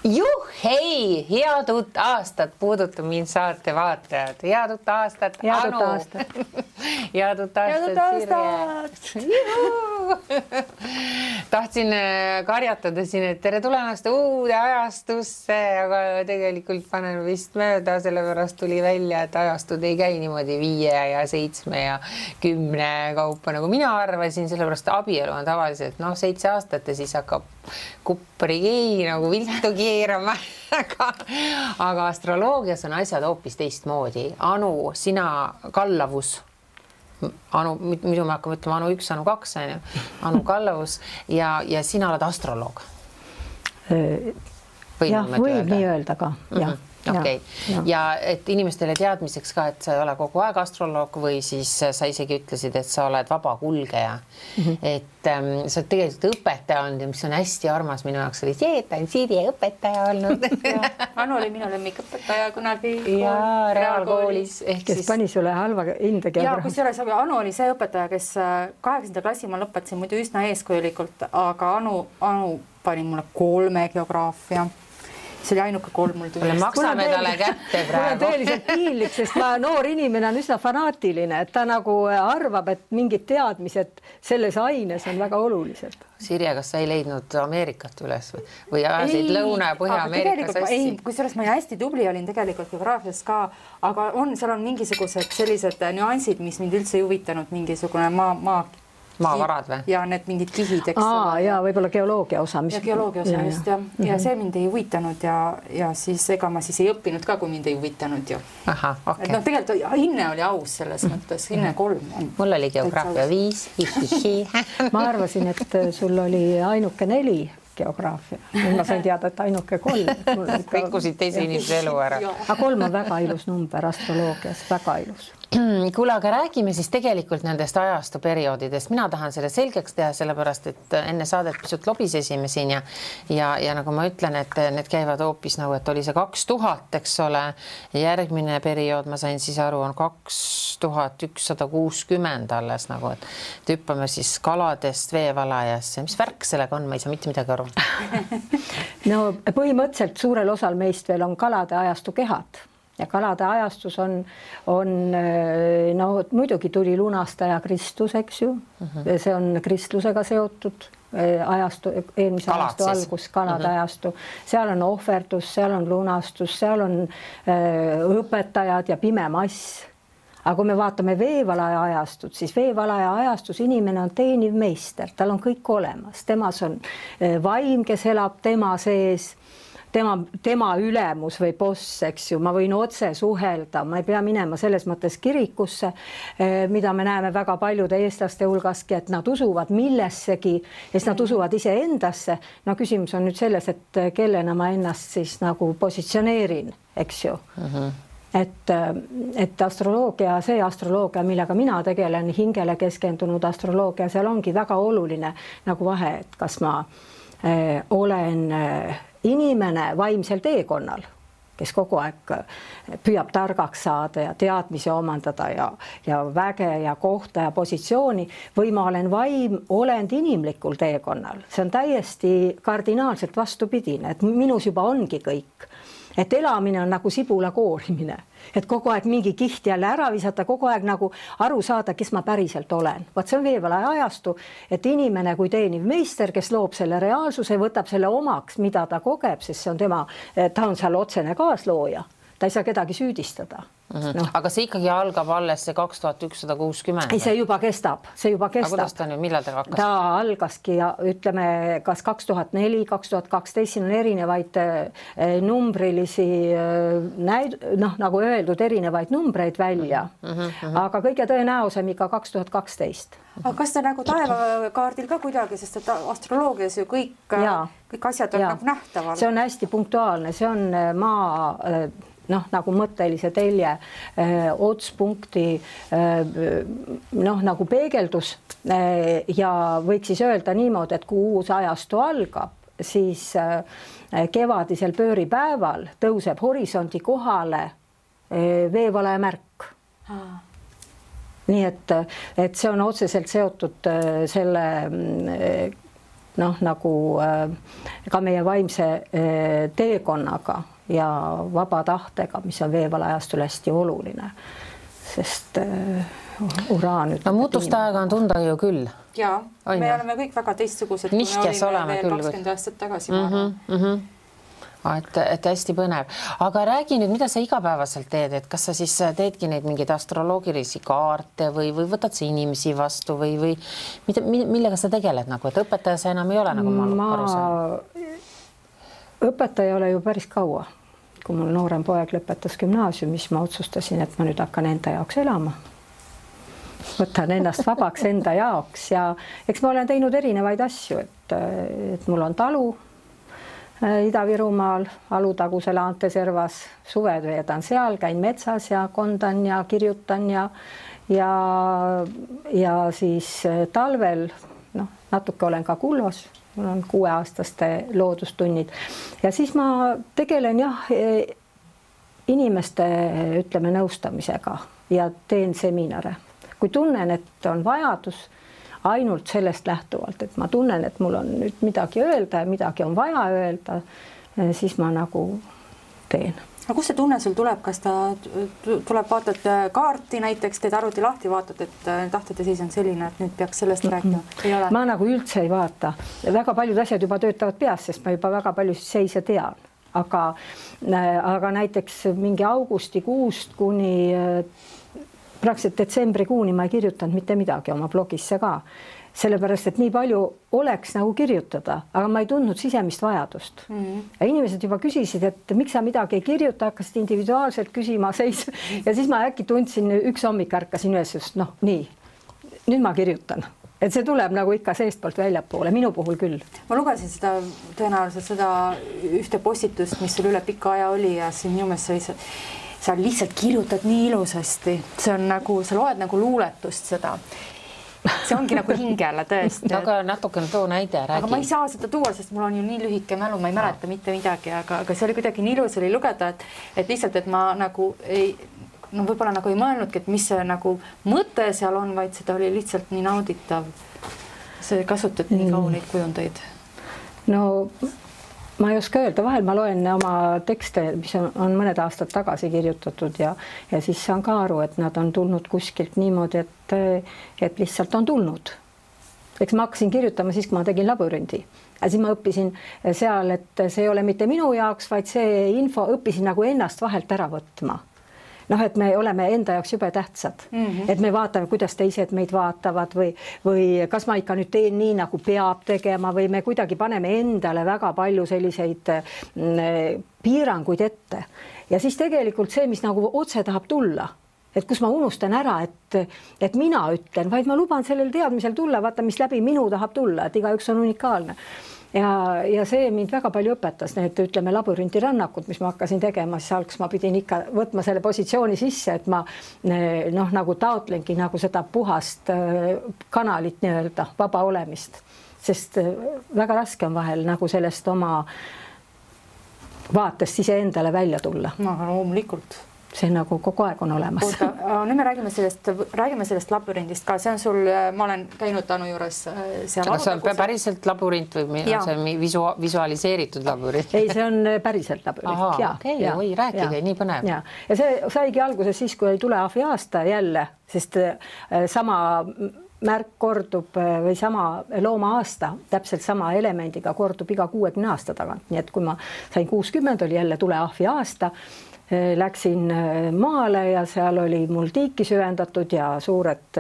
Juhhei, head uut aastat puudutab mind saate vaatajad. Head uut aastat, Anu. Head uut aastat, Sirje. Tahtsin karjatada siin, et tere tulemast uude ajastusse, aga tegelikult panen vist mööda, sellepärast tuli välja, et ajastud ei käi niimoodi 5 ja 7 ja 10 kaupa, nagu mina arvasin, sellepärast abielu on tavaliselt 7 aastat ja siis hakkab kuppri nagu viltu keerama. Aga astroloogias on asjad hoopis teistmoodi. Anu, sina kallavus. Anu, muidu me hakkame ütlema Anu 1, Anu 2, Anu kallavus ja sina oled astroloog. Jah, võib nii öelda ka. Okay. Ja et inimestele teadmiseks ka, et sa ei ole kogu aeg astroloog või siis sa isegi ütlesid, et sa oled vaba kulgeja. Et sa oled tegelikult õpetaja olnud ja mis on hästi armas minu jaoks oli see, et ta on Sirje õpetaja olnud. Anu oli minu lemmikõpetaja kunagi reaalkoolis. Kes pani sulle halva hinde geograafia. Anu oli see õpetaja, kes 8. klassi ma lõpetasin muidu üsna eeskujulikult, aga Anu pani mulle 3 geograafia. See oli ainuke 3 mul tuli. Maksame talle kätte praegu. Mul on tõeliselt piinlik, sest noor inimene on üsna fanaatiline, et ta nagu arvab, et mingid teadmised selles aines on väga olulised. Sirje, kas sa ei leidnud Ameerikat üles või ajasid Lõuna- ja Põhja-Ameerika sassi? Ei, kusjuures ma hästi tubli olin tegelikult geograafias ka, aga seal on mingisugused sellised nüansid, mis mind üldse ei huvitanud, mingisugune maavarad või? Ja need mingid kihid, eks. Ja võib-olla geoloogia osa. Ja geoloogia osa just, ja see mind ei huvitanud ja siis ega ma siis ei õppinud ka, kui mind ei huvitanud ju. Aha, okei. Tegelikult hinne oli aus selles mõttes, hinne 3. Mul oli geograafia 5. Ma arvasin, et sul oli ainuke 4 geograafia. Ma sain teada, et ainuke 3. Rikkusid teise inimese elu ära. Aga 3 on väga ilus number astroloogias, väga ilus. Kuule, aga räägime siis tegelikult nendest ajastu perioodidest. Mina tahan selle selgeks teha, sellepärast, et enne saadet pisut lobisesime siin ja nagu ma ütlen, et need käivad hoopis nagu, et oli see 2000, eks ole. Järgmine periood, ma sain siis aru, on 2160 alles nagu, et hüppame siis kaladest veevalajasse. Mis värk sellega on? Ma ei saa mitte midagi aru. No põhimõtteliselt suurel osal meist veel on kalade ajastu kehad. Ja kalade ajastus on muidugi tuli lunastaja Kristus, eks ju. See on kristlusega seotud ajastu, eelmise ajastu algus, kalade ajastu. Seal on ohverdus, seal on lunastus, seal on õpetajad ja pime mass. Aga kui me vaatame veevalaja ajastut, siis veevalaja ajastus inimene on teeniv meister, tal on kõik olemas. Temas on vaim, kes elab tema sees. Tema ülemus või boss, eks ju, ma võin otse suhelda, ma ei pea minema selles mõttes kirikusse, mida me näeme väga paljude eestlaste hulgaski, et nad usuvad millessegi ja siis nad usuvad ise endasse. No küsimus on nüüd selles, et kellena ma ennast siis nagu positsioneerin, eks ju. Et astroloogia, see astroloogia, millega mina tegelen, hingele keskendunud astroloogia, seal ongi väga oluline nagu vahe, et kas ma olen inimene vaimsel teekonnal, kes kogu aeg püüab targaks saada ja teadmisi omandada ja väge ja kohta ja positsiooni või ma olen vaim olend inimlikul teekonnal. See on täiesti kardinaalselt vastupidine, et minus juba ongi kõik. Et elamine on nagu sibula koorimine, et kogu aeg mingi kiht jälle ära visata, kogu aeg nagu aru saada, kes ma päriselt olen. Vaat see on veevalaja ajastu, et inimene kui teeniv meister, kes loob selle reaalsuse, võtab selle omaks, mida ta kogeb, sest see on ta on seal otsene kaaslooja. Ta ei saa kedagi süüdistada. Aga see ikkagi algab alles see 2160. Ei, see juba kestab. Aga kuidas ta nüüd, millal ta hakkas? Ta algaski ja ütleme kas 2004, 2012, siin on erinevaid numbrilisi, nagu öeldud, erinevaid numbreid välja. Aga kõige tõenäosem ikka 2012. Aga kas ta nagu taevakaardil ka kuidagi, sest et astroloogias ju kõik asjad on nagu nähtaval? See on hästi punktuaalne, see on maa nagu mõttelise telje otspunkti nagu peegeldus ja võiks siis öelda niimoodi, et kui uus ajastu algab, siis kevadisel pööripäeval tõuseb horisondi kohale veevalaja märk. Nii et see on otseselt seotud selle noh, nagu ka meie vaimse teekonnaga ja vaba tahtega, mis on veevalajastul hästi oluline, sest uraan ütleb. No muutuste aega on tunda ju küll. Jaa, me oleme kõik väga teistsugused, kui me olime veel 20 aastat tagasi. Et hästi põnev. Aga räägi nüüd, mida sa igapäevaselt teed, et kas sa siis teedki neid mingeid astroloogilisi kaarte või võtad sa inimesi vastu või millega sa tegeled nagu, et õpetaja sa enam ei ole, nagu ma aru saan? Õpetaja ei ole ju päris kaua. Kui mul noorem poeg lõpetas gümnaasiumis, ma otsustasin, et ma nüüd hakkan enda jaoks elama. Võtan ennast vabaks enda jaoks ja eks ma olen teinud erinevaid asju, et mul on talu Ida-Virumaal, Alutaguse Laanteservas, suved veedan seal, käin metsas ja kondan ja kirjutan ja siis talvel natuke olen ka Kullos, mul on 6-aastaste loodustunnid ja siis ma tegelen inimeste, ütleme, nõustamisega ja teen seminare. Kui tunnen, et on vajadus ainult sellest lähtuvalt, et ma tunnen, et mul on nüüd midagi öelda ja midagi on vaja öelda, siis ma nagu teen. Aga kus see tunne sul tuleb? Kas ta tuleb, vaatad kaarti näiteks, teed arvuti lahti, vaatad, et tahtete siis on selline, et nüüd peaks sellest rääkima? Ma nagu üldse ei vaata. Väga paljud asjad juba töötavad peas, sest ma juba väga palju seise tean. Aga näiteks mingi augustikuust kuni praktiliselt detsembrikuuni ma ei kirjutanud mitte midagi oma blogisse ka, sellepärast, et nii palju oleks nagu kirjutada, aga ma ei tundnud sisemist vajadust. Ja inimesed juba küsisid, et miks sa midagi ei kirjuta, hakkasid individuaalselt küsima seis ja siis ma äkki tundsin, üks hommik ärkasin üles, just nii, nüüd ma kirjutan. Et see tuleb nagu ikka seestpoolt väljapoole, minu puhul küll. Ma lugesin tõenäoliselt seda ühte postitust, mis sul üle pika aja oli ja siin minu meelest sa lihtsalt kirjutad nii ilusasti. See on nagu, sa loed nagu luuletust seda. See ongi nagu hingele tõesti. Aga natukene too näide, räägi. Aga ma ei saa seda tuua, sest mul on ju nii lühike mälu, ma ei mäleta mitte midagi, aga see oli kuidagi nii ilus oli lugeda, et lihtsalt, et ma nagu ei, võib-olla nagu ei mõelnudki, et mis see nagu mõte seal on, vaid seda oli lihtsalt nii nauditav. See kasutad nii kauneid kujundeid. No ma ei oska öelda, vahel ma loen oma tekste, mis on mõned aastad tagasi kirjutatud ja siis saan ka aru, et nad on tulnud kuskilt niimoodi, et lihtsalt on tulnud. Eks ma hakkasin kirjutama siis, kui ma tegin labürindi. Ja siis ma õppisin seal, et see ei ole mitte minu jaoks, vaid see info õppisin nagu ennast vahelt ära võtma. Et me oleme enda jaoks jube tähtsad, et me vaatame, kuidas teised meid vaatavad või kas ma ikka nüüd teen nii, nagu peab tegema või me kuidagi paneme endale väga palju selliseid piiranguid ette. Ja siis tegelikult see, mis nagu otse tahab tulla, et kus ma unustan ära, et mina ütlen, vaid ma luban sellel teadmisel tulla, vaata, mis läbi minu tahab tulla, et igaüks on unikaalne. Ja see mind väga palju õpetas, need ütleme labürinti rannakud, mis ma hakkasin tegema, siis alguses ma pidin ikka võtma selle positsiooni sisse, et ma nagu taotlengi nagu seda puhast kanalit nii-öelda, vaba olemist, sest väga raske on vahel nagu sellest oma vaatest iseendale välja tulla. No, loomulikult. See nagu kogu aeg on olemas. Oota, nüüd me räägime sellest labürindist ka. See on sul, ma olen käinud Anu juures seal. Aga see on päriselt labürint või on see visualiseeritud labürint? Ei, see on päriselt labürint. Oi, rääkige, nii põnev. Ja see saigi alguses siis, kui oli Tuleahvi aasta jälle, sest sama märk kordub või sama looma aasta, täpselt sama elemendiga kordub iga 60 aasta tagant. Nii et kui ma sain 60, oli jälle Tuleahvi aasta, läksin maale ja seal oli mul tiiki süvendatud ja suured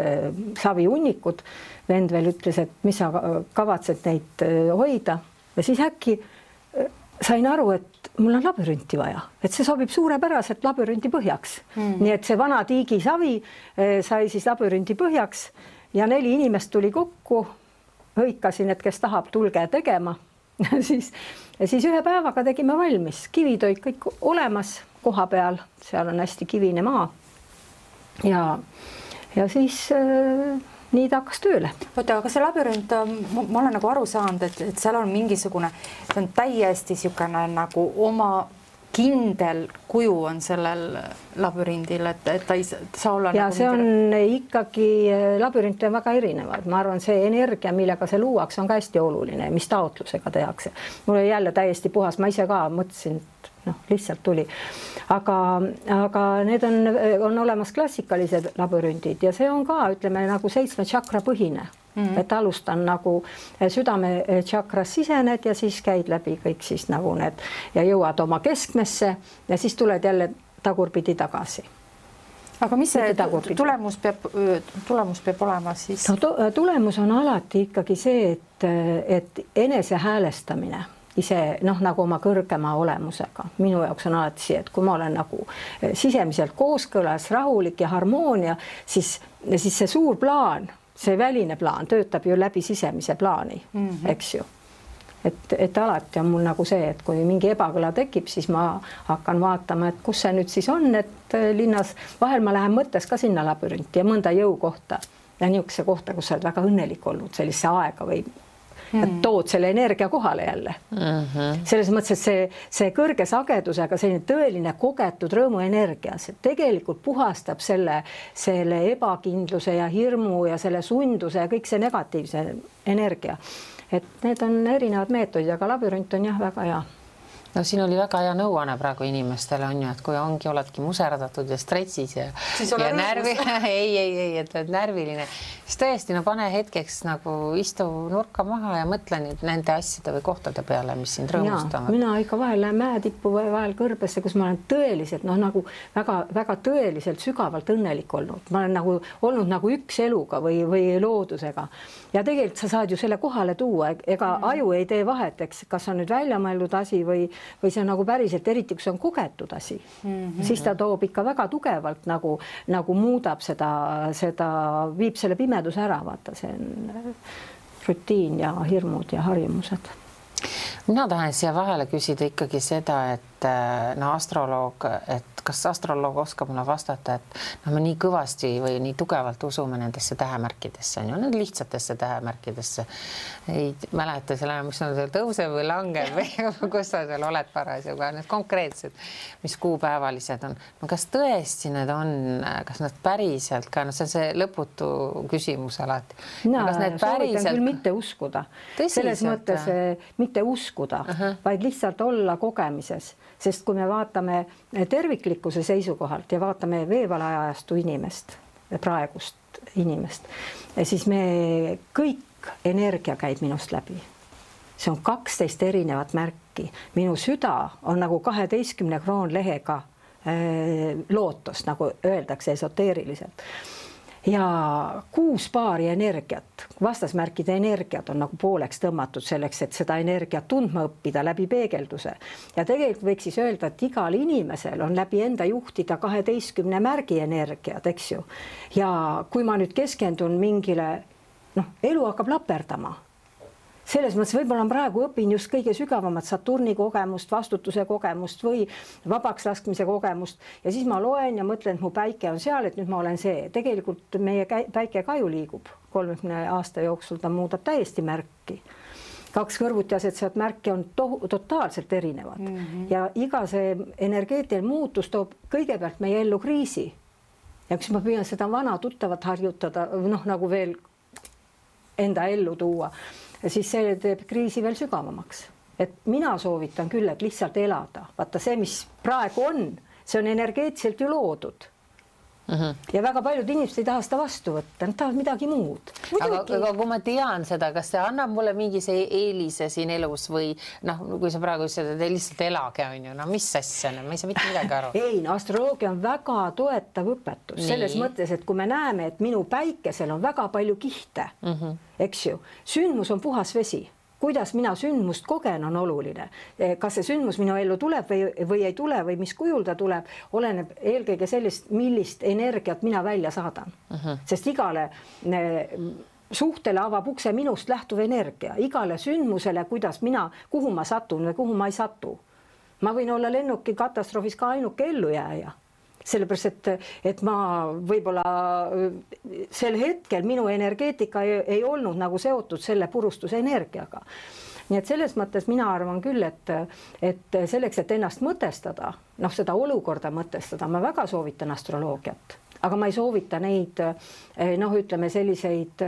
saviunnikud. Vend veel ütles, et mis sa kavatsed neid hoida ja siis äkki sain aru, et mul on labürinti vaja, et see sobib suurepäraselt labürinti põhjaks. Nii et see vana tiigisavi sai siis labürinti põhjaks ja 4 inimest tuli kokku, hõikasin, et kes tahab, tulge tegema. siis ühe päevaga tegime valmis, kivid olid kõik olemas koha peal, seal on hästi kivine maa ja siis nii ta hakkas tööle. Oota, aga see labürint, ma olen nagu aru saanud, et seal on mingisugune, see on täiesti niisugune nagu oma kindel kuju on sellel labürindil, et ta ei saa olla ja nagu see on ikkagi, labürint on väga erinevad. Ma arvan, see energia, millega see luuakse, on ka hästi oluline, mis taotlusega tehakse. Mul oli jälle täiesti puhas, ma ise ka mõtlesin, lihtsalt tuli. Aga need on olemas klassikalised labürindid ja see on ka, ütleme, nagu 7 tšakra põhine. Et alustan nagu südame tšakras sisened ja siis käid läbi kõik siis nagu need ja jõuad oma keskmesse ja siis tuled jälle tagurpidi tagasi. Aga mis see tulemus peab olema siis? Tulemus on alati ikkagi see, et enese häälestamine ise nagu oma kõrgema olemusega. Minu jaoks on alati see, et kui ma olen nagu sisemiselt kooskõlas, rahulik ja harmoonia, siis see suur plaan, see väline plaan töötab ju läbi sisemise plaani, eks ju. Et alati on mul nagu see, et kui mingi ebakõla tekib, siis ma hakkan vaatama, et kus see nüüd siis on, et linnas vahel ma lähen mõttes ka sinna labürinti ja mõnda jõukohta ja niisuguse kohta, kus sa oled väga õnnelik olnud, sellise aega või tood selle energia kohale jälle. Selles mõttes, et see kõrge sagedusega selline tõeline kogetud rõõmuenergia, see tegelikult puhastab selle ebakindluse ja hirmu ja selle sunduse ja kõik see negatiivse energia. Et need on erinevad meetodid, aga labürint on jah väga hea. No siin oli väga hea nõuanne praegu inimestele on ju, et kui oledki muserdatud ja stressis ja närvi, et oled närviline, siis tõesti, pane hetkeks nagu istu nurka maha ja mõtle nüüd nende asjade või kohtade peale, mis sind rõõmustavad. Mina ikka vahel lähen mäetippu või vahel kõrbesse, kus ma olen tõeliselt, nagu väga tõeliselt sügavalt õnnelik olnud. Ma olen nagu olnud nagu üks eluga või loodusega. Ja tegelikult sa saad ju selle kohale tuua, ega aju ei tee vahet, eks, kas on nüüd välja mõeldud asi või see on nagu päriselt, eriti kui see on kogetud asi, siis ta toob ikka väga tugevalt nagu muudab seda, viib selle pimeduse ära, vaata, see on rutiin ja hirmud ja harjumused. Mina tahan siia vahele küsida ikkagi seda, et astroloog, et kas astroloog oskab mulle vastata, et me nii kõvasti või nii tugevalt usume nendesse tähemärkidesse, on ju, need lihtsatesse tähemärkidesse. Ei mäleta selle, mis on seal tõuseb või langeb või kus sa seal oled parasjagu, need konkreetsed, mis kuupäevalised on. No kas tõesti need on, kas nad päriselt ka, see on see lõputu küsimus alati. Soovitan küll mitte uskuda. Selles mõttes mitte uskuda, vaid lihtsalt olla kogemises. Sest kui me vaatame terviklikkuse seisukohalt ja vaatame veevalajajastu inimest, praegust inimest, siis me kõik energia käib minust läbi. See on 12 erinevat märki. Minu süda on nagu 12 kroonlehega lootus, nagu öeldakse esoteeriliselt. Ja 6 paari energiat, vastasmärkide energiat on nagu pooleks tõmmatud selleks, et seda energiat tundma õppida läbi peegelduse. Ja tegelikult võiks siis öelda, et igal inimesel on läbi enda juhtida 12 märgi energiat, eks ju. Ja kui ma nüüd keskendun mingile, elu hakkab laperdama. Selles mõttes võib-olla praegu õpin just kõige sügavamat Saturni kogemust, vastutuse kogemust või vabaks laskmise kogemust ja siis ma loen ja mõtlen, et mu päike on seal, et nüüd ma olen see. Tegelikult meie päike ka ju liigub 30 aasta jooksul, ta muudab täiesti märki. 2 kõrvuti asetsevat märki on totaalselt erinevad ja iga see energeetiline muutus toob kõigepealt meie ellu kriisi. Ja kui ma püüan seda vana tuttavat harjutada, nagu veel enda ellu tuua, siis see teeb kriisi veel sügavamaks. Et mina soovitan küll, et lihtsalt elada. Vaata see, mis praegu on, see on energeetiliselt ju loodud. Ja väga paljud inimesed ei taha seda vastu võtta, nad tahavad midagi muud. Aga kui ma tean seda, kas see annab mulle mingi see eelise siin elus või kui sa praegu ütlesid, et lihtsalt elage on ju, mis asja, ma ei saa mitte midagi aru. Ei, astroloogia on väga toetav õpetus. Selles mõttes, et kui me näeme, et minu päikesel on väga palju kihte, eks ju, sündmus on puhas vesi. Kuidas mina sündmust kogen on oluline. Kas see sündmus minu ellu tuleb või ei tule või mis kujul ta tuleb, oleneb eelkõige sellist, millist energiat mina välja saadan. Sest igale suhtele avab ukse minust lähtuv energia. Igale sündmusele, kuhu ma satun või kuhu ma ei satu. Ma võin olla lennuki katastroofis ka ainuke ellujääja. Sellepärast, et ma võib-olla sel hetkel minu energeetika ei olnud nagu seotud selle purustuse energiaga. nii et selles mõttes mina arvan küll, et selleks, et ennast mõtestada, noh, seda olukorda mõtestada, ma väga soovitan astroloogiat, aga ma ei soovita neid, noh, ütleme selliseid,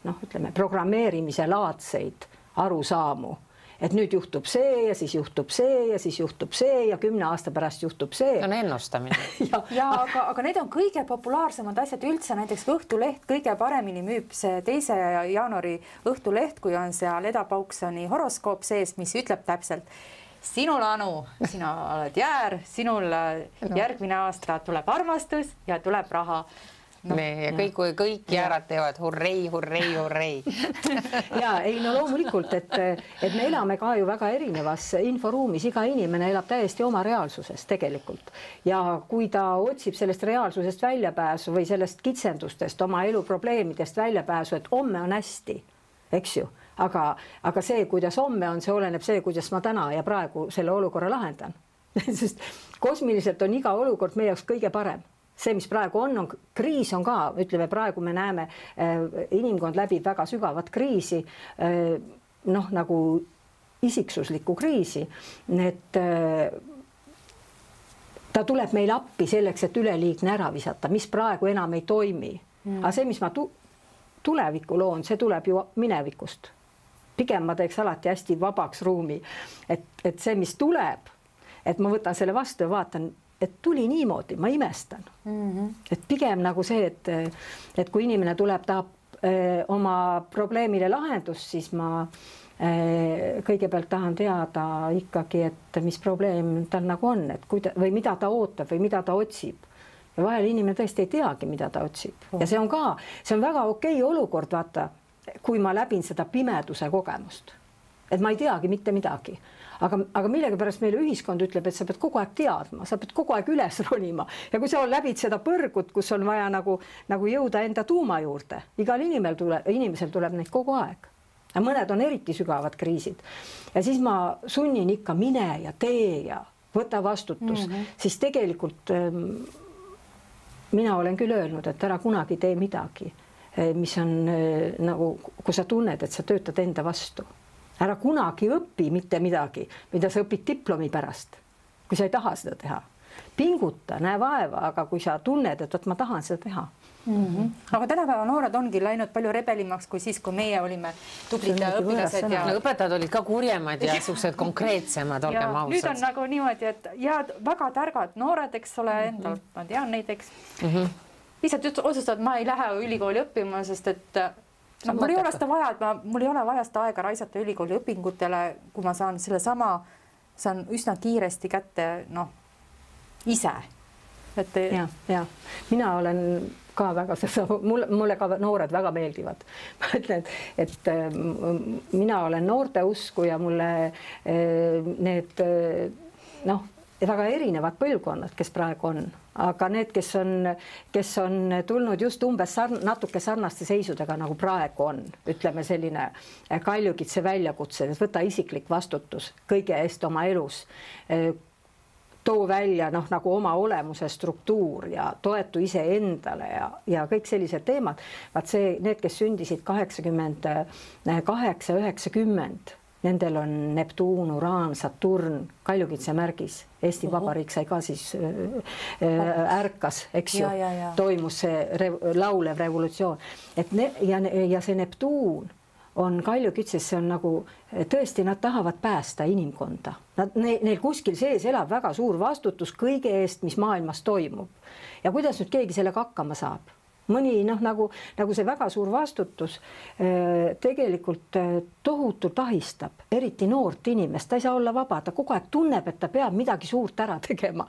noh, ütleme programmeerimise laadseid arusaamu, et nüüd juhtub see ja siis juhtub see ja siis juhtub see ja 10 aasta pärast juhtub see. On ennustamine. aga need on kõige populaarsemad asjad üldse, näiteks Õhtuleht kõige paremini müüb see 2. jaanuari Õhtuleht, kui on seal Eda Pauksoni horoskoop sees, mis ütleb täpselt, sinul, Anu, sina oled jäär, sinul järgmine aasta tuleb armastus ja tuleb raha. No, ja kõik jäärad teevad hurrei, hurrei, hurrei. Ja ei, no loomulikult, et me elame ka ju väga erinevas inforuumis, iga inimene elab täiesti oma reaalsuses tegelikult. Ja kui ta otsib sellest reaalsusest väljapääsu või sellest kitsendustest, oma elu probleemidest väljapääsu, et homme on hästi, eks ju, aga see, kuidas homme on, see oleneb see, kuidas ma täna ja praegu selle olukorra lahendan. Sest kosmiliselt on iga olukord meie jaoks kõige parem. See, mis praegu on kriis on ka, ütleme, praegu me näeme, inimkond läbib väga sügavat kriisi, noh, nagu isiksuslikku kriisi, et ta tuleb meil appi selleks, et üleliigne ära visata, mis praegu enam ei toimi. Aga see, mis ma tulevikku loon, see tuleb ju minevikust. Pigem ma teeks alati hästi vabaks ruumi, et see, mis tuleb, et ma võtan selle vastu ja vaatan, et tuli niimoodi, ma imestan. Et pigem nagu see, et kui inimene tuleb, tahab oma probleemile lahendust, siis ma kõigepealt tahan teada ikkagi, et mis probleem tal nagu on, et või mida ta ootab või mida ta otsib. Ja vahel inimene tõesti ei teagi, mida ta otsib. Ja see on väga okei olukord, vaata, kui ma läbin seda pimeduse kogemust. Et ma ei teagi mitte midagi. Aga millega pärast meile ühiskond ütleb, et sa pead kogu aeg teadma, sa pead kogu aeg üles ronima. Ja kui sa läbid seda põrgut, kus on vaja nagu jõuda enda tuuma juurde, igal inimesel tuleb neid kogu aeg. Ja mõned on eriti sügavad kriisid. Ja siis ma sunnin ikka mine ja tee ja võta vastutus. Siis tegelikult mina olen küll öelnud, et ära kunagi tee midagi, mis on nagu, kui sa tunned, et sa töötad enda vastu. Ära kunagi õpi mitte midagi, mida sa õpid diplomi pärast, kui sa ei taha seda teha. Pinguta, näe vaeva, aga kui sa tunned, et ma tahan seda teha. Aga tänapäeva noored ongi läinud palju rebelimaks kui siis, kui meie olime tublid õpilased. Ja õpetajad olid ka kurjemad ja suhted konkreetsemad, olgem ausad. Nüüd on nagu niimoodi, et ja väga targad noored, eks ole, endal, ma tean neid, eks. Lihtsalt otsustavad, ma ei lähe ülikooli õppima, sest et no, mul ei ole seda vaja, et mul ei ole vaja seda aega raisata ülikooli õpingutele, kui ma saan saan üsna kiiresti kätte, noh, ise. Ja. Mina olen ka väga seda, mulle ka noored väga meeldivad. Ma ütlen, et mina olen noorte usku ja mulle need, noh, väga erinevad põlvkonnad, kes praegu on. Aga need, kes on tulnud just umbes natuke sarnaste seisudega, nagu praegu on, ütleme selline Kaljukitse väljakutse, et võta isiklik vastutus kõige eest oma elus, too välja nagu oma olemuse struktuur ja toetu ise endale ja kõik sellised teemad. Vaat see, need, kes sündisid 88-90, nendel on Neptuun, Uraan, Saturn, Kaljukitse märgis. Eesti Vabariik sai ka siis ärkas, eks ju, toimus see laulev revolutsioon. Ja see Neptuun on Kaljukitses, see on nagu, tõesti nad tahavad päästa inimkonda. Neil kuskil sees elab väga suur vastutus kõige eest, mis maailmas toimub. Ja kuidas nüüd keegi sellega hakkama saab? Mõni, nagu see väga suur vastutus tegelikult tohutult ahistab, eriti noort inimest, ta ei saa olla vaba, ta kogu aeg tunneb, et ta peab midagi suurt ära tegema.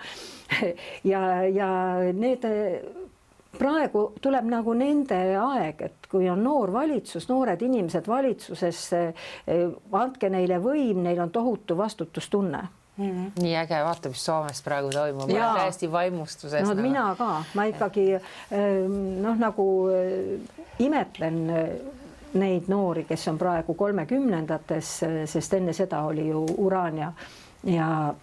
Ja need praegu tuleb nagu nende aeg, et kui on noor valitsus, noored inimesed valitsuses, andke neile võim, neil on tohutu vastutustunne. Nii äge, vaata, mis Soomes praegu toimub. Ma olen täiesti vaimustuses. No, mina ka. Ma ikkagi nagu imetlen neid noori, kes on praegu 30-ndates, sest enne seda oli ju Uraan ja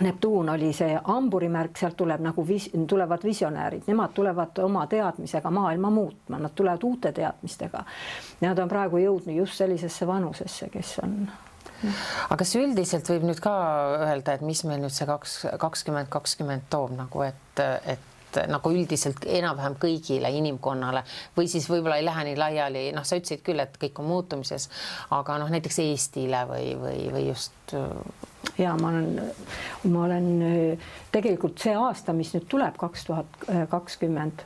Neptuun oli see hamburimärk, sealt tuleb nagu tulevad visionäärid, nemad tulevad oma teadmisega maailma muutma, nad tulevad uute teadmistega. Nad on praegu jõudnud just sellisesse vanusesse, kes on. Aga kas üldiselt võib nüüd ka öelda, et mis meil nüüd see 2020 toob nagu, et nagu üldiselt enam-vähem kõigile inimkonnale või siis võib-olla ei lähe nii laiali, sa ütlesid küll, et kõik on muutumises, aga näiteks Eestile või just. Ja ma olen tegelikult see aasta, mis nüüd tuleb 2020,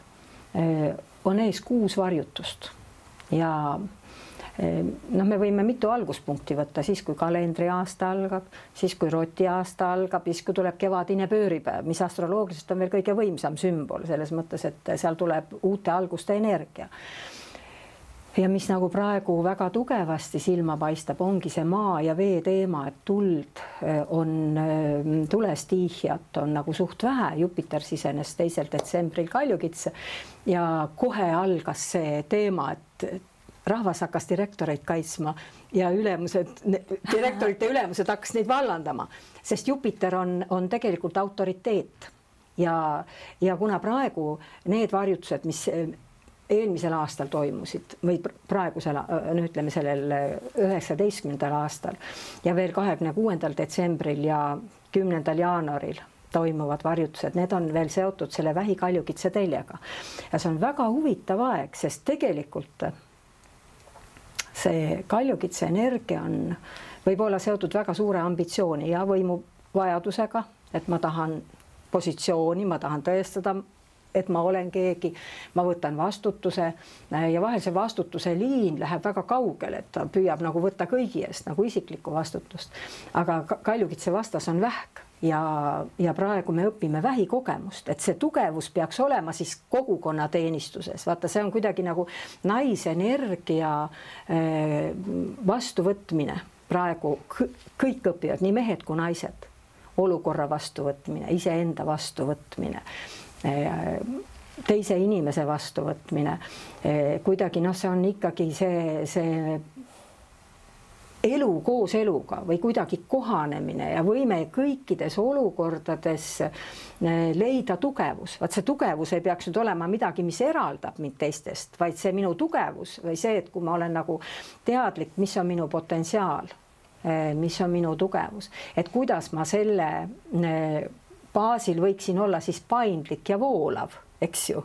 on ees 6 varjutust ja me võime mitu alguspunkti võtta, siis kui kalendriaasta algab, siis kui rotiaasta algab, siis kui tuleb kevadine pööripäev, mis astroloogiliselt on veel kõige võimsam sümbol selles mõttes, et seal tuleb uute alguste energia. Ja mis nagu praegu väga tugevasti silma paistab, ongi see maa ja vee teema, et tuld on tulestiihjat on nagu suht vähe, Jupiter sisenes 2. detsembril Kaljukitse ja kohe algas see teema, et rahvas hakkas direktoreid kaitsma ja direktorite ülemused hakkas neid vallandama, sest Jupiter on tegelikult autoriteet ja kuna praegu need varjutused, mis eelmisel aastal toimusid või praegusel, ütleme sellel 19. aastal ja veel 26. detsembril ja 10. jaanuaril toimuvad varjutused, need on veel seotud selle Vähi-Kaljukitse teljega ja see on väga huvitav aeg, sest tegelikult see Kaljukitse energia võib olla seotud väga suure ambitsiooni ja võimuvajadusega, et ma tahan positsiooni, ma tahan tõestada, et ma olen keegi, ma võtan vastutuse ja vahel see vastutuse liin läheb väga kaugele, et ta püüab nagu võtta kõigi eest nagu isiklikku vastutust. Aga Kaljukitse vastas on vähk ja praegu me õpime vähikogemust, et see tugevus peaks olema siis kogukonna teenistuses. Vaata, see on kuidagi nagu naisenergia vastuvõtmine. Praegu kõik õpivad, nii mehed kui naised, olukorra vastuvõtmine, iseenda vastuvõtmine, teise inimese vastuvõtmine. Kuidagi see on ikkagi see elu koos eluga või kuidagi kohanemine ja võime kõikides olukordades leida tugevus. Vaat see tugevus ei peaks nüüd olema midagi, mis eraldab mind teistest, vaid see minu tugevus või see, et kui ma olen nagu teadlik, mis on minu potentsiaal, mis on minu tugevus, et kuidas ma selle baasil võiksin olla siis paindlik ja voolav, eks ju.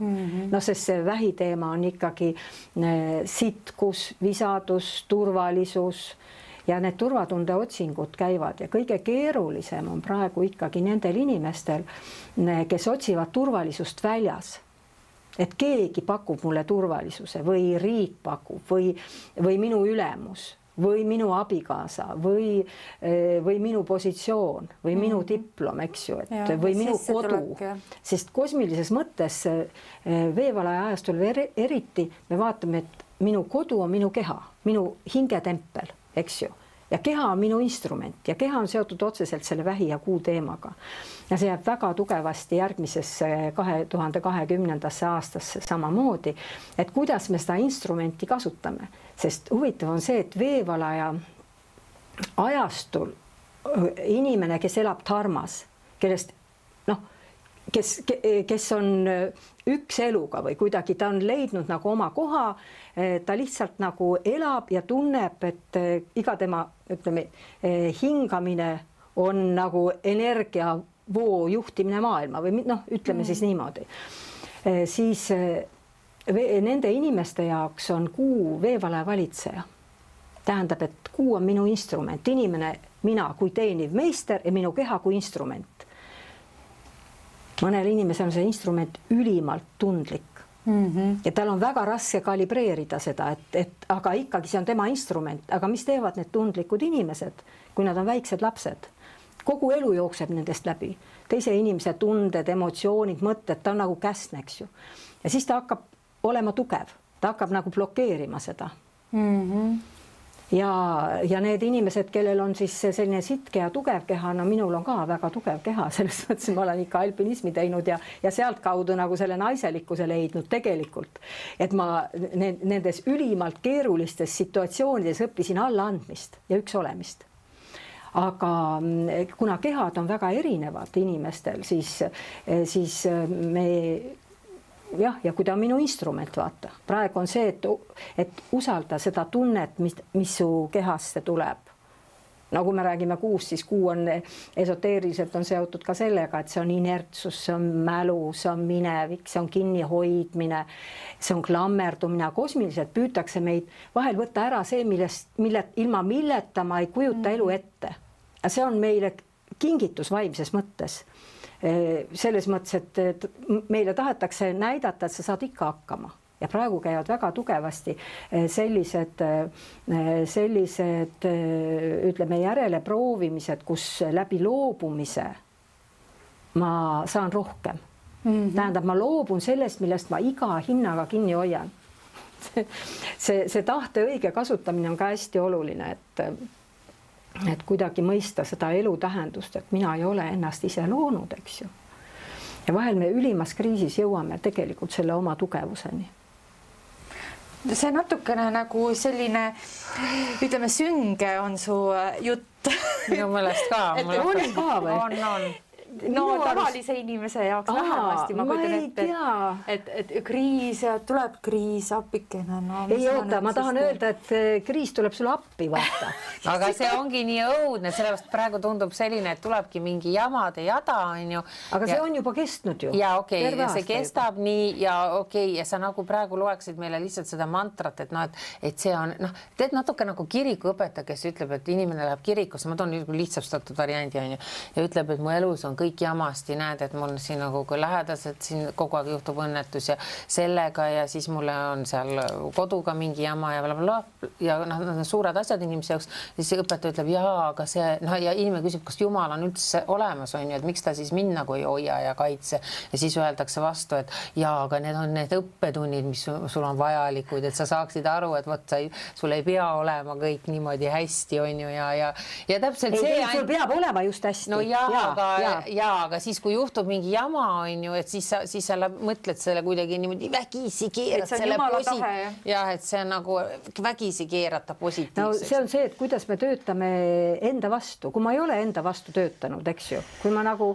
Sest see vähiteema on ikkagi sitkus, visadus, turvalisus ja need turvatunde otsingud käivad ja kõige keerulisem on praegu ikkagi nendel inimestel, kes otsivad turvalisust väljas. Et keegi pakub mulle turvalisuse või riik pakub või minu ülemus või minu abikaasa või minu positsioon või minu diplom, eks ju, või minu kodu. Sest kosmilises mõttes veevalaja ajastul eriti me vaatame, et minu kodu on minu keha, minu hingetempel, eks ju. Ja keha on minu instrument ja keha on seotud otseselt selle vähi ja kuu teemaga. Ja see jääb väga tugevasti järgmisesse 2020. aastasse samamoodi, et kuidas me seda instrumenti kasutame. Sest huvitav on see, et veevalaja ajastul inimene, kes elab dharmas, kellest kes on üks eluga või kuidagi ta on leidnud nagu oma koha, ta lihtsalt nagu elab ja tunneb, et iga tema, ütleme, hingamine on nagu energiavoo juhtimine maailma või ütleme siis niimoodi. Siis nende inimeste jaoks on kuu veevalaja valitseja. Tähendab, et kuu on minu instrument, inimene, mina kui teeniv meister ja minu keha kui instrument. Mõnel inimesel on see instrument ülimalt tundlik ja tal on väga raske kalibreerida seda, et aga ikkagi see on tema instrument, aga mis teevad need tundlikud inimesed, kui nad on väiksed lapsed? Kogu elu jookseb nendest läbi, teise inimese tunded, emotsioonid, mõtted, ta on nagu käsn, eks ju. Ja siis ta hakkab olema tugev, ta hakkab nagu blokeerima seda. Ja need inimesed, kellel on siis selline sitke ja tugev keha, minul on ka väga tugev keha, selles mõttes ma olen ikka alpinismi teinud ja sealt kaudu nagu selle naiselikkuse leidnud tegelikult, et ma nendes ülimalt keerulistes situatsioonides õppisin allaandmist ja üks olemist. aga kuna kehad on väga erinevad inimestel, siis me jah, ja kui ta on minu instrument, vaata, praegu on see, et usalda seda tunnet, mis su kehasse tuleb. Nagu me räägime kuust, siis kuu on esoteeriliselt on seotud ka sellega, et see on inertsus, see on mälu, see on minevik, see on kinnihoidmine, see on klammerdumine. Kosmiliselt püütakse meid vahel võtta ära see, ilma milleta ma ei kujuta elu ette. See on meile kingitus vaimses mõttes. Selles mõttes, et meile tahetakse näidata, et sa saad ikka hakkama. Ja praegu käivad väga tugevasti sellised ütleme järele proovimised, kus läbi loobumise ma saan rohkem. Tähendab, ma loobun sellest, millest ma iga hinnaga kinni hoian. See tahte õige kasutamine on ka hästi oluline, et kuidagi mõista seda elu tähendust, et mina ei ole ennast ise loonud, eks ju. Ja vahel me ülimas kriisis jõuame tegelikult selle oma tugevuseni. See natukene nagu selline, ütleme, sünge on su jutt. Minu meelest ka. On ka või? On. No tavalise inimese jaoks vähemasti ma kujutan ette, et kriis ja tuleb kriis, appikene. Ei oota, ma tahan öelda, et kriis tuleb sulle appi, vaata. Aga see ongi nii õudne, sellepärast praegu tundub selline, et tulebki mingi jamade jada, on ju. Aga see on juba kestnud ju. Ja okei, ja see kestab nii ja okei, ja sa nagu praegu loeksid meile lihtsalt seda mantrat, et see on, teed natuke nagu kirikuõpetaja, kes ütleb, et inimene läheb kirikusse, ma toon lihtsastatud variandi, on ju, ja ütleb, et mu elus on kõik jamasti, näed, et mul siin nagu lähedased, siin kogu aeg juhtub õnnetus ja sellega ja siis mulle on seal koduga mingi jama ja blablabla ja suured asjad inimese jaoks, siis õpetaja ütleb, jaa, aga see, ja inimene küsib, kas Jumal on üldse olemas, on ju, et miks ta siis mind nagu ei hoia ja kaitse ja siis öeldakse vastu, et jaa, aga need on need õppetunnid, mis sul on vajalikud, et sa saaksid aru, et vot sul ei pea olema kõik niimoodi hästi, on ju, ja täpselt see... Sul peab olema just hästi. No aga siis, kui juhtub mingi jama, on ju, et siis sa mõtled selle kuidagi niimoodi vägisi keerad selle et see on nagu vägisi keerata positiivseks. No see on see, et kuidas me töötame enda vastu. Kui ma ei ole enda vastu töötanud, eks ju, kui ma nagu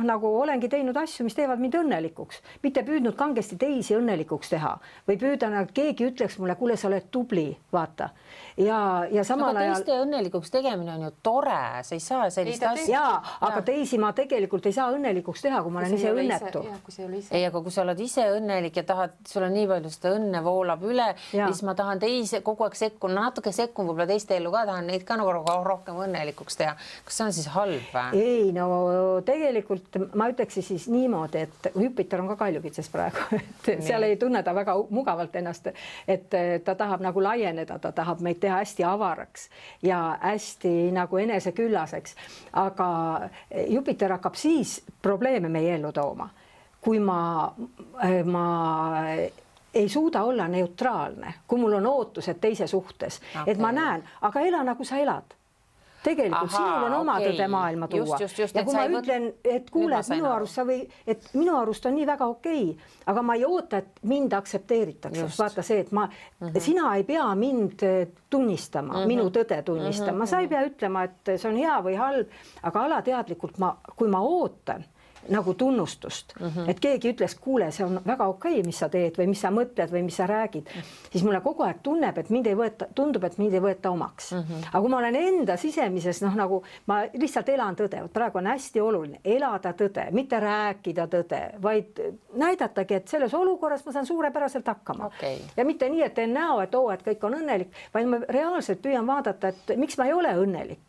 nagu olengi teinud asju, mis teevad mind õnnelikuks, mitte püüdnud kangesti teisi õnnelikuks teha või püüdan, et keegi ütleks mulle, kuule, sa oled tubli, vaata. Ja samal ajal... Teiste õnnelikuks tegemine on ju tore, sa ei saa sellist asja. Aga teisi ma tegelikult ei saa õnnelikuks teha, kui ma olen ise õnnetu. Ei, aga kui sa oled ise õnnelik ja tahad, sul on nii palju seda õnne voolab üle, siis ma tahan teise kogu aeg sekkun, natuke sekkun võib-olla teiste ellu ka, tahan neid ka nagu rohkem õnnelikuks teha. Kas see on siis halb? Ei, no tegelikult ma ütleksin siis niimoodi, et Jupiter on ka kaljukitses praegu, et seal ei tunne ta väga mugavalt ennast, et ta tahab nagu laieneda, ta tahab meid teha hästi avaraks ja hästi nagu eneseküllaseks, aga Jupiter hakkab siis probleeme meie ellu tooma, kui ma ei suuda olla neutraalne, kui mul on ootused teise suhtes, et ma näen, aga ela nagu sa elad. Tegelikult sinul on oma tõde maailma tuua. Ja kui ma ütlen, et kuule, et minu arust on nii väga okei, aga ma ei oota, et mind aktsepteeritakse. Vaata see, et sina ei pea mind tunnistama, minu tõde tunnistama. Sa ei pea ütlema, et see on hea või halb, aga alateadlikult, kui ma ootan nagu tunnustust, et keegi ütles, kuule, see on väga okei, mis sa teed või mis sa mõtled või mis sa räägid, siis mulle kogu aeg tundub, et mind ei võeta omaks. Aga kui ma olen enda sisemises, nagu ma lihtsalt elan tõde, praegu on hästi oluline elada tõde, mitte rääkida tõde, vaid näidatagi, et selles olukorras ma saan suurepäraselt hakkama. Ja mitte nii, et teen näo, et kõik on õnnelik, vaid ma reaalselt püüan vaadata, et miks ma ei ole õnnelik.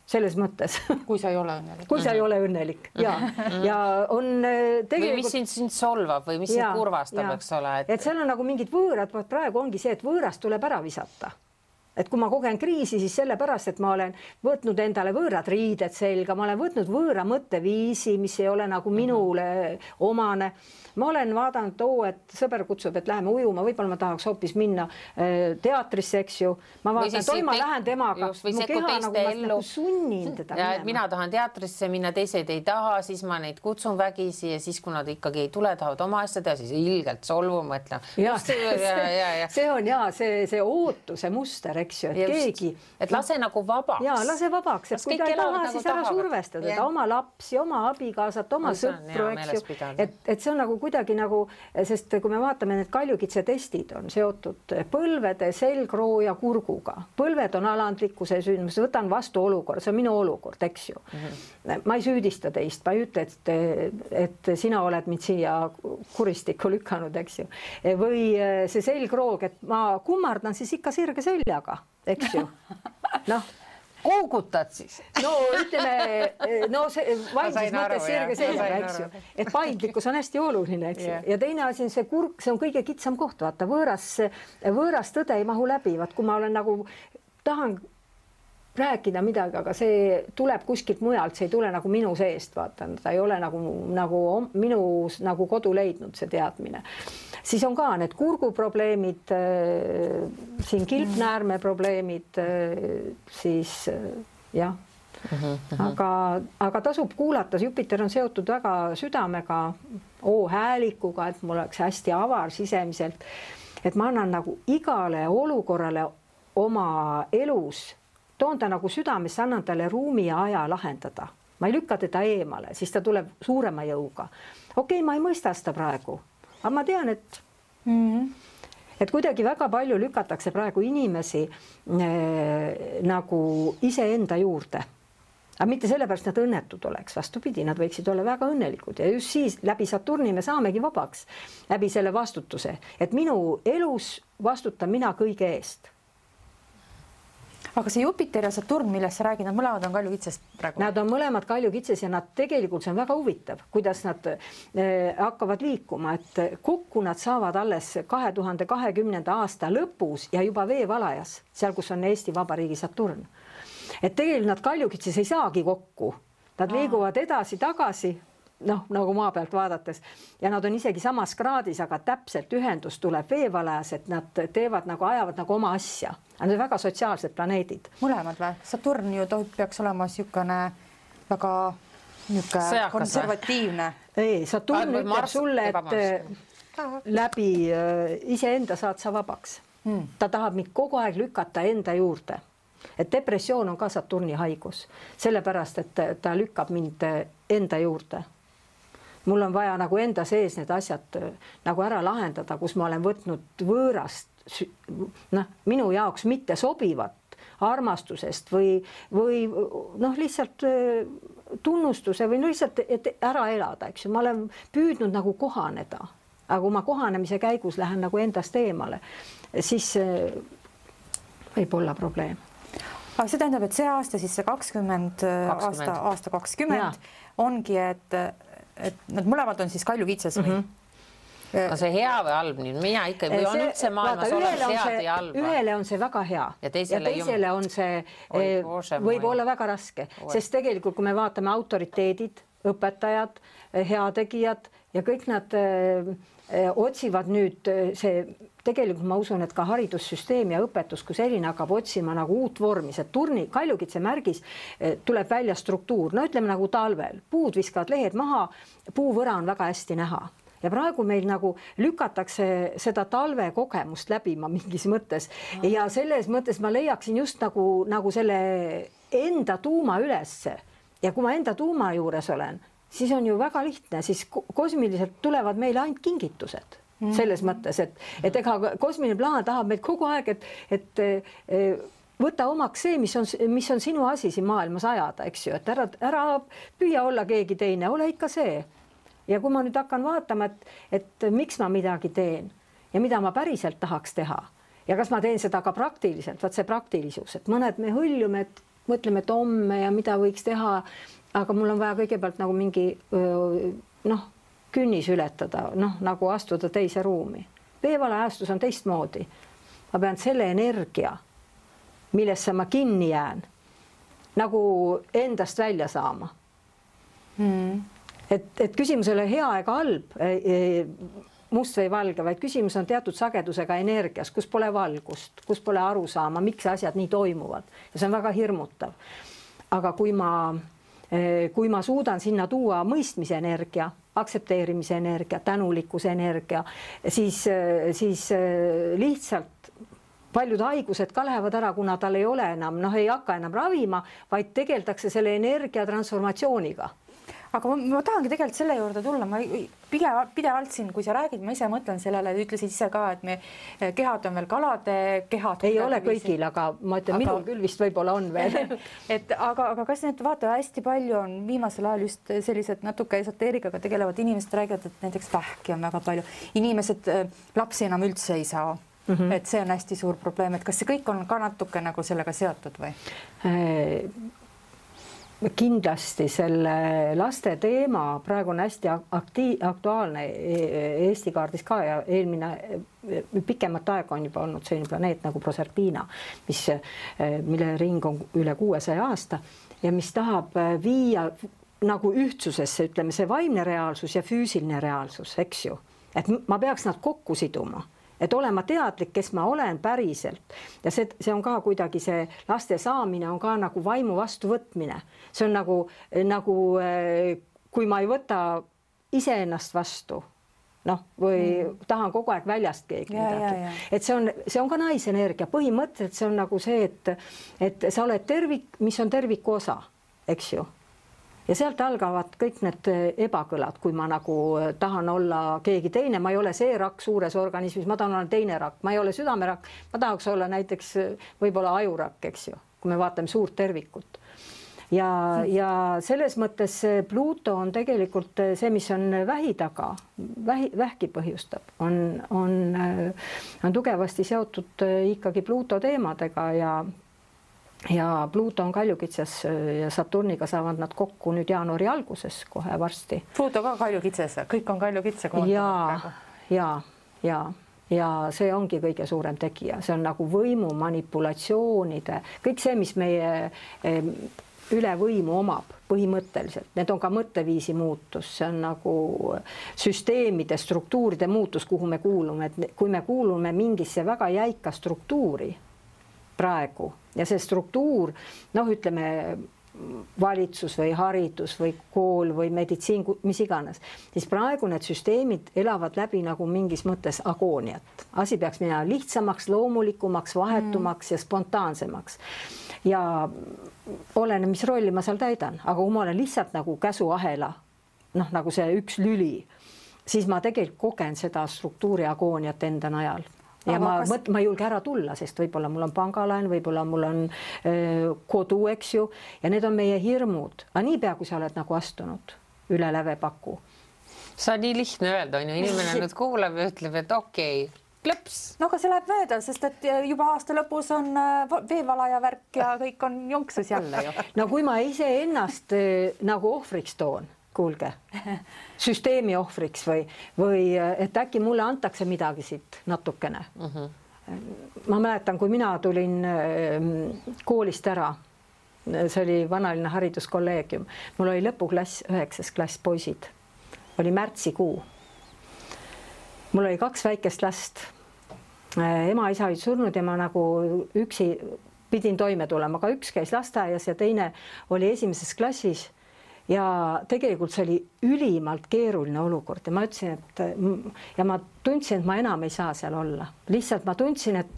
Selles mõttes. Kui sa ei ole õnnelik. Kui sa ei ole õnnelik, ja on tegelikult... Või mis sind solvab või mis sind kurvastab, eks ole. Et seal on nagu mingid võõrad, praegu ongi see, et võõrast tuleb ära visata. Et kui ma kogen kriisi, siis sellepärast, et ma olen võtnud endale võõrad riided selga, ma olen võtnud võõra mõtteviisi, mis ei ole nagu minule omane. Ma olen vaadanud, et sõber kutsub, et läheme ujuma, võib-olla ma tahaks hoopis minna teatrisse, eks ju. Ma vaatan, ma lähen temaga, mu keha nagu ma nagu sunnin teda minema. Mina tahan teatrisse minna, teised ei taha, siis ma neid kutsun vägisi ja siis, kui nad ikkagi ei tule, tahavad oma asja teha, siis ilgelt solvu mõtlen. See on see ootuse muster, eks ju, et keegi. Et lase nagu vabaks. Jaa, lase vabaks, et kui ta ei taha, siis ära survestada ta oma lapsi, oma abikaasat, oma sõpru, eks ju. Et see on nagu kuidagi nagu, sest kui me vaatame, need kaljukitse testid on seotud põlvede, selgroo ja kurguga. Põlved on alandlikkuse sündmus, võtan vastu olukord, see on minu olukord, eks ju. Ma ei süüdista teist, ma ei ütle, et sina oled mind siia kuristikku lükanud, eks ju. Või see selgroog, et ma kummardan siis ikka sirge seljaga, eks ju. Noh, koogutad siis? No ütleme, no see vaimses mõttes sirge seljaga, eks ju. Et paindlikkus on hästi oluline, eks ju. Ja teine asi on see kurk, see on kõige kitsam koht, vaata, võõras tõde ei mahu läbi, vaat kui ma olen nagu, tahan rääkida midagi, aga see tuleb kuskilt mujalt, see ei tule nagu minu seest, vaata, ta ei ole nagu minu nagu kodu leidnud see teadmine. Siis on ka need kurguprobleemid, siin kilpnäärme probleemid, siis jah. Aga tasub kuulata, Jupiter on seotud väga südamega, häälikuga, et mul oleks hästi avar sisemiselt, et ma annan nagu igale olukorrale oma elus, toon ta nagu südamesse, annan talle ruumi ja aja lahendada. Ma ei lükka teda eemale, siis ta tuleb suurema jõuga. Okei, ma ei mõista seda praegu, aga ma tean, et kuidagi väga palju lükatakse praegu inimesi nagu iseenda juurde. Aga mitte sellepärast nad õnnetud oleks, vastupidi, nad võiksid olla väga õnnelikud ja just siis läbi Saturni me saamegi vabaks, läbi selle vastutuse, et minu elus vastutan mina kõige eest. Aga see Jupiter ja Saturn, millest sa räägid, nad mõlemad on kaljukitsest praegu? Nad on mõlemad kaljukitses ja nad tegelikult, see on väga huvitav, kuidas nad hakkavad liikuma, et kokku nad saavad alles 2020. aasta lõpus ja juba veevalajas, seal, kus on Eesti Vabariigi Saturn. Et tegelikult nad kaljukitses ei saagi kokku, nad liiguvad edasi-tagasi, noh, nagu maa pealt vaadates ja nad on isegi samas kraadis, aga täpselt ühendus tuleb veevalajas, et nad teevad nagu, ajavad nagu oma asja. Nad on väga sotsiaalsed planeedid. Mõlemad või? Saturn ju peaks olema sükane väga konservatiivne. Ei, Saturn ütleb sulle, et läbi iseenda saad sa vabaks. Ta tahab mind kogu aeg lükata enda juurde. Et depressioon on ka Saturni haigus, sellepärast, et ta lükkab mind enda juurde. Mul on vaja nagu enda sees need asjad nagu ära lahendada, kus ma olen võtnud võõrast, minu jaoks mitte sobivat armastusest või lihtsalt tunnustuse või lihtsalt et ära elada, eks ju. Ma olen püüdnud nagu kohaneda, aga kui ma kohanemise käigus lähen nagu endast eemale, siis võib olla probleem. Aga see tähendab, et see aasta, siis see 20 aasta 20 ongi, et nad mõlemad on siis kaljukitses või? No see hea või halb, mina ikka või on üldse maailmas olemas head ja halba. Ühele on see väga hea ja teisele on see võib olla väga raske, sest tegelikult, kui me vaatame autoriteedid, õpetajad, heategijad ja kõik nad otsivad nüüd see, tegelikult ma usun, et ka haridussüsteem ja õpetus, kui selline hakkab otsima nagu uut vormi, see kaljukitse märgis tuleb välja struktuur, no ütleme nagu talvel, puud viskavad lehed maha, puuvõra on väga hästi näha. Ja praegu meil nagu lükatakse seda talve kogemust läbima mingis mõttes ja selles mõttes ma leiaksin just nagu selle enda tuuma ülesse ja kui ma enda tuuma juures olen, siis on ju väga lihtne, siis kosmiliselt tulevad meile ainult kingitused selles mõttes, et ega kosmiline plaan tahab meid kogu aeg, et võta omaks see, mis on sinu asi siin maailmas ajada, eks ju, et ära püüa olla keegi teine, ole ikka see. Ja kui ma nüüd hakkan vaatama, et miks ma midagi teen ja mida ma päriselt tahaks teha ja kas ma teen seda ka praktiliselt, vaat see praktilisus, et mõned me hõljume, et mõtleme, et homme ja mida võiks teha, aga mul on vaja kõigepealt nagu mingi künnis ületada, nagu astuda teise ruumi. Veevalaajastus on teistmoodi. Ma pean selle energia, millesse ma kinni jään, nagu endast välja saama. Et küsimus ei ole hea ega halb, must või valge, vaid küsimus on teatud sagedusega energias, kus pole valgust, kus pole aru saama, miks asjad nii toimuvad. Ja see on väga hirmutav. Aga kui ma suudan sinna tuua mõistmise energia, aktsepteerimise energia, tänulikkuse energia, siis lihtsalt paljud haigused ka lähevad ära, kuna tal ei ole enam, ei hakka enam ravima, vaid tegeldakse selle energia transformatsiooniga. Aga ma tahangi tegelikult selle juurde tulla, ma pidevalt siin, kui sa räägid, ma ise mõtlen sellele, ütlesid ise ka, et me kehad on veel kalade kehad. Ei ole kõigil, aga ma ütlen, minul küll vist võib-olla on veel. aga kas need vaata hästi palju on viimasel ajal just sellised natuke esoteerikaga tegelevad inimesed räägivad, et näiteks vähki on väga palju. Inimesed lapsi enam üldse ei saa. Et see on hästi suur probleem, et kas see kõik on ka natuke nagu sellega seotud või? Kindlasti selle laste teema praegu on hästi aktuaalne Eesti kaardis ka ja eelmine pikemat aega on juba olnud selline planeet nagu Proserpina, mille ring on üle 600 aasta ja mis tahab viia nagu ühtsusesse, ütleme see vaimne reaalsus ja füüsiline reaalsus, eks ju, et ma peaks nad kokku siduma. Et olema teadlik, kes ma olen päriselt ja see on ka kuidagi see laste saamine on ka nagu vaimu vastuvõtmine. See on nagu kui ma ei võta iseennast vastu, või tahan kogu aeg väljast keegi midagi. Et see on ka naisenergia. Põhimõtteliselt see on nagu see, et sa oled tervik, mis on terviku osa, eks ju. Ja sealt algavad kõik need ebakõlad, kui ma nagu tahan olla keegi teine, ma ei ole see rakk suures organismis, ma tahan olla teine rakk, ma ei ole südamerakk, ma tahaks olla näiteks võib-olla ajurakk, eks ju, kui me vaatame suurt tervikut. Ja selles mõttes Pluto on tegelikult see, mis on vähi taga, vähki põhjustab, on tugevasti seotud ikkagi Pluto teemadega ja Pluto on Kaljukitsas ja Saturniga saavad nad kokku nüüd jaanuari alguses kohe varsti. Pluto ka Kaljukitsas, kõik on Kaljukitsa kohta. Ja see ongi kõige suurem tegija, see on nagu võimu manipulatsioonide, kõik see, mis meie üle võimu omab põhimõtteliselt, need on ka mõtteviisi muutus, see on nagu süsteemide, struktuuride muutus, kuhu me kuulume, et kui me kuulume mingisse väga jäika struktuuri praegu ja see struktuur, ütleme valitsus või haridus või kool või meditsiin, mis iganes, siis praegu need süsteemid elavad läbi nagu mingis mõttes agooniat. Asi peaks minema lihtsamaks, loomulikumaks, vahetumaks ja spontaansemaks. Ja oleneb, mis rolli ma seal täidan, aga kui ma olen lihtsalt nagu käsuahela, nagu see üks lüli, siis ma tegelikult kogen seda struktuuri agooniat enda najal. Ja ma ei julge ära tulla, sest võib-olla mul on pangalaen, võib-olla mul on kodu, eks ju, ja need on meie hirmud. Aga nii pea, kui sa oled nagu astunud üle lävepaku. See on nii lihtne öelda, on ju, inimene nüüd kuulab ja ütleb, et okei, klõps. No aga see läheb mööda, sest et juba aasta lõpus on veevalaja värk ja kõik on jonksus jälle ju. No kui ma ise ennast nagu ohvriks toon, kuulge, süsteemi ohvriks või et äkki mulle antakse midagi siit natukene. Ma mäletan, kui mina tulin koolist ära, see oli vanaline hariduskolleegium, mul oli lõpuklass, 9. klass poisid, oli märtsikuu. Mul oli 2 väikest last, ema isa olid surnud ja ma nagu üksi pidin toime tulema, aga üks käis lasteaias ja teine oli 1. klassis. Ja tegelikult see oli ülimalt keeruline olukord ja ma ütlesin, et ma tundsin, et ma enam ei saa seal olla. Lihtsalt ma tundsin, et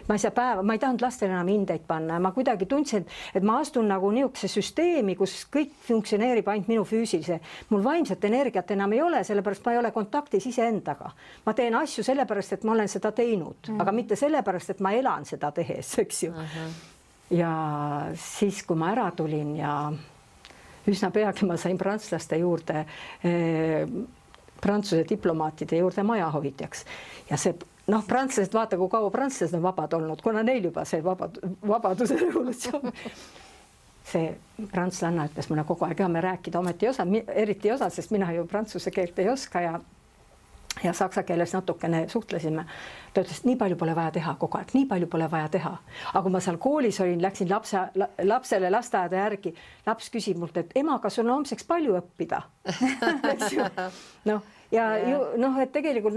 ma ei saa päeva, ma ei tahtnud lastele enam hindeid panna ja ma kuidagi tundsin, et ma astun nagu niisuguse süsteemi, kus kõik funktsioneerib ainult minu füüsilise. Mul vaimset energiat enam ei ole, sellepärast ma ei ole kontaktis iseendaga. Ma teen asju sellepärast, et ma olen seda teinud, aga mitte sellepärast, et ma elan seda tehes, eks ju. Ja siis, kui ma ära tulin ja üsna peagi ma sain prantslaste juurde, prantsuse diplomaatide juurde majahoidjaks. Ja see, prantslased, vaata, kui kaua prantslased on vabad olnud, kuna neil juba see vabaduse revolutsioon. See prantslanna ütles mulle kogu aeg, me rääkida ometi eriti osa, sest mina ju prantsuse keelt ei oska ja saksa keeles natukene suhtlesime. Ta ütles, et nii palju pole vaja teha kogu aeg, nii palju pole vaja teha. Aga kui ma seal koolis olin, läksin lapsele lasteaeda järgi, laps küsib mult, et ema, kas on homseks palju õppida? Et tegelikult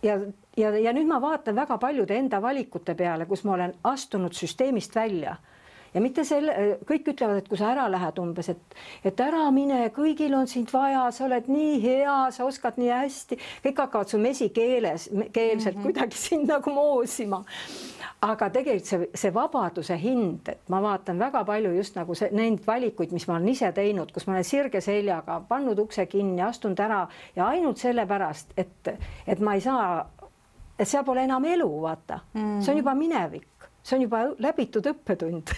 ja nüüd ma vaatan väga paljude enda valikute peale, kus ma olen astunud süsteemist välja ja mitte kõik ütlevad, et kui sa ära lähed umbes, et ära mine, kõigil on sind vaja, sa oled nii hea, sa oskad nii hästi, kõik hakkavad su mesikeelselt kuidagi sind nagu moosima. Aga tegelikult see vabaduse hind, et ma vaatan väga palju just nagu neid valikuid, mis ma olen ise teinud, kus ma olen sirge seljaga pannud ukse kinni, astunud ära ja ainult sellepärast, et ma ei saa, et seal pole enam elu, vaata. See on juba minevik, see on juba läbitud õppetund.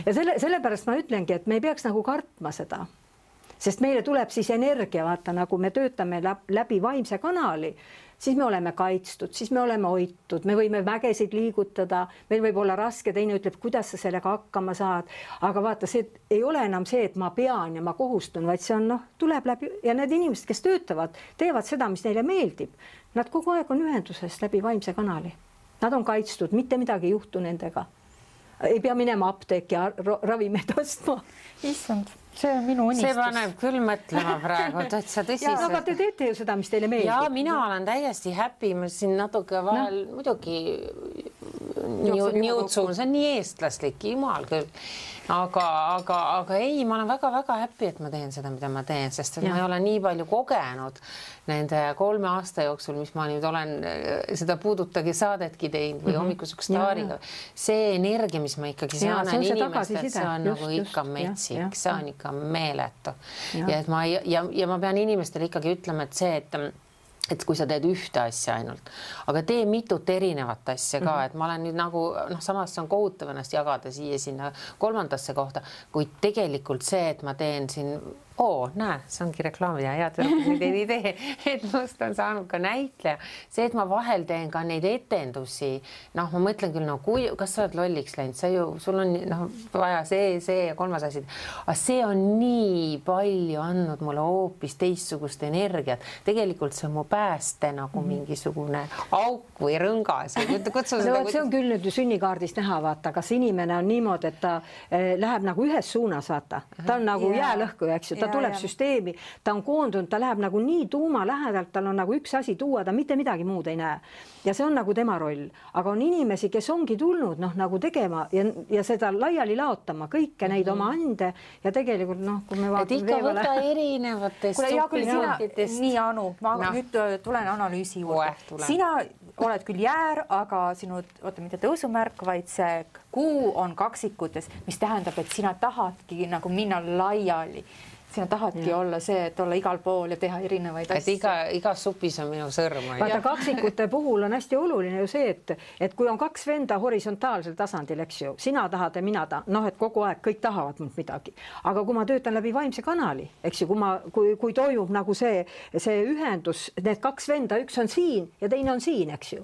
Ja sellepärast ma ütlengi, et me ei peaks nagu kartma seda, sest meile tuleb siis energia, vaata, nagu me töötame läbi vaimse kanali, siis me oleme kaitstud, siis me oleme hoitud, me võime mägesid liigutada, meil võib olla raske, teine ütleb, kuidas sa sellega hakkama saad, aga vaata, see ei ole enam see, et ma pean ja ma kohustun, vaid see on, tuleb läbi ja need inimesed, kes töötavad, teevad seda, mis neile meeldib. Nad kogu aeg on ühenduses läbi vaimse kanali. Nad on kaitstud, mitte midagi ei juhtu nendega. Ei pea minema apteeki ja ravimeid ostma. Issand, see on minu unistus. See paneb küll mõtlema praegu, täitsa tõsiselt. Aga te teete ju seda, mis teile meeldib. Ja mina olen täiesti happy, ma siin natuke vahel muidugi niutsun, see on nii eestlaslik, jumal küll. Aga ei, ma olen väga-väga happy, et ma teen seda, mida ma teen, sest ma ei ole nii palju kogenud nende 3 aasta jooksul, mis ma nüüd olen seda puudutagi saadetki teinud või hommikuseks staariga. See energia, mis ma ikkagi saan inimestelt, see on nagu ikka metsik, see on ikka meeletu. Ja ma pean inimestele ikkagi ütlema, et see, et kui sa teed ühte asja ainult, aga tee mitut erinevat asja ka, et ma olen nüüd nagu, samas on kohutav ennast jagada siia sinna 3. kohta, kuid tegelikult see, et ma teen siin, näe, see ongi reklaamid ja head nüüd ei idee, et must on saanud ka näitleja. See, et ma vahel teen ka neid etendusi, ma mõtlen küll, kas sa oled lolliks läinud, sul on vaja see ja 3. asi. Aga see on nii palju andnud mulle hoopis teistsugust energiat. Tegelikult see on mu pääste nagu mingisugune auk või rõngas. See on küll nüüd sünnikaardist näha, vaata, kas inimene on niimoodi, et ta läheb nagu ühes suunas, vaata. Ta on nagu jäälõhku, eks ju. Ta tuleb süsteemi, ta on koondunud, ta läheb nagu nii tuuma lähedalt, tal on nagu üks asi tuua, ta mitte midagi muud ei näe. Ja see on nagu tema roll. Aga on inimesi, kes ongi tulnud nagu tegema ja seda laiali laotama, kõike neid oma ande ja tegelikult, kui me vaatame ikka võta erinevatest supinatitest. Nii, Anu, ma nüüd tulen analüüsi juurde. Sina oled küll jäär, aga sinu, mitte tõusumärk, vaid see kuu on kaksikutes, mis tähendab, et sina tahadki nagu minna laiali. Sina tahadki olla see, et olla igal pool ja teha erinevaid asju. Et igas supis on minu sõrm. Vaata, kaksikute puhul on hästi oluline ju see, et kui on 2 venda horisontaalsel tasandil, eks ju, sina tahad ja mina tahan, et kogu aeg kõik tahavad mult midagi. Aga kui ma töötan läbi vaimse kanali, eks ju, kui toimub nagu see ühendus, need 2 venda, üks on siin ja teine on siin, eks ju,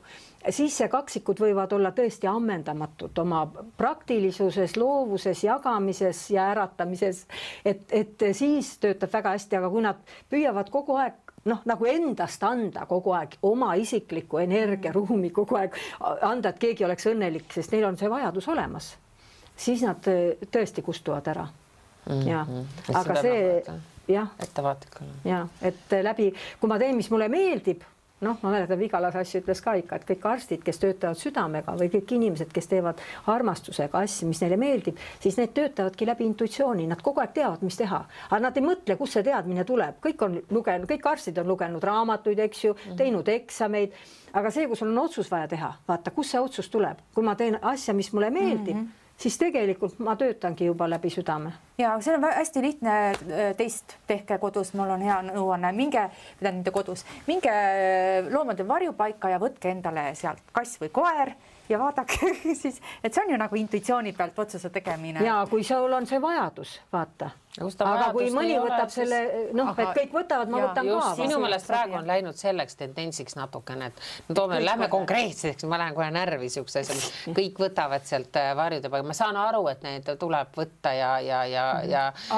siis see kaksikud võivad olla tõesti ammendamatud oma praktilisuses, loovuses, jagamises ja äratamises, et siis töötab väga hästi, aga kui nad püüavad kogu aeg nagu endast anda kogu aeg oma isikliku energiaruumi kogu aeg anda, et keegi oleks õnnelik, sest neil on see vajadus olemas, siis nad tõesti kustuvad ära. Ja. Aga see, et läbi, kui ma teen, mis mulle meeldib, ma mäletan, Vigalas asju ütles ka ikka, et kõik arstid, kes töötavad südamega või kõik inimesed, kes teevad armastusega asju, mis neile meeldib, siis need töötavadki läbi intuitsiooni, nad kogu aeg teavad, mis teha, aga nad ei mõtle, kus see teadmine tuleb, kõik arstid on lugenud raamatuid, eks ju, teinud eksameid, aga see, kus on otsus vaja teha, vaata, kus see otsus tuleb, kui ma teen asja, mis mulle meeldib, siis tegelikult ma töötangi juba läbi südame. Ja see on hästi lihtne teist, tehke kodus, mul on hea nõuanne, minge loomade varjupaika ja võtke endale sealt kass või koer ja vaadake siis, et see on ju nagu intuitsiooni pealt otsuse tegemine. Ja kui sul on see vajadus, vaata. Aga kui mõni võtab selle, et kõik võtavad, ma võtan ka. Sinu meelest praegu on läinud selleks tendentsiks natukene, et lähme konkreetseks, ma lähen kohe närvi siukse asja, kõik võtavad sealt varjude paika. Ma saan aru, et need tuleb võtta ja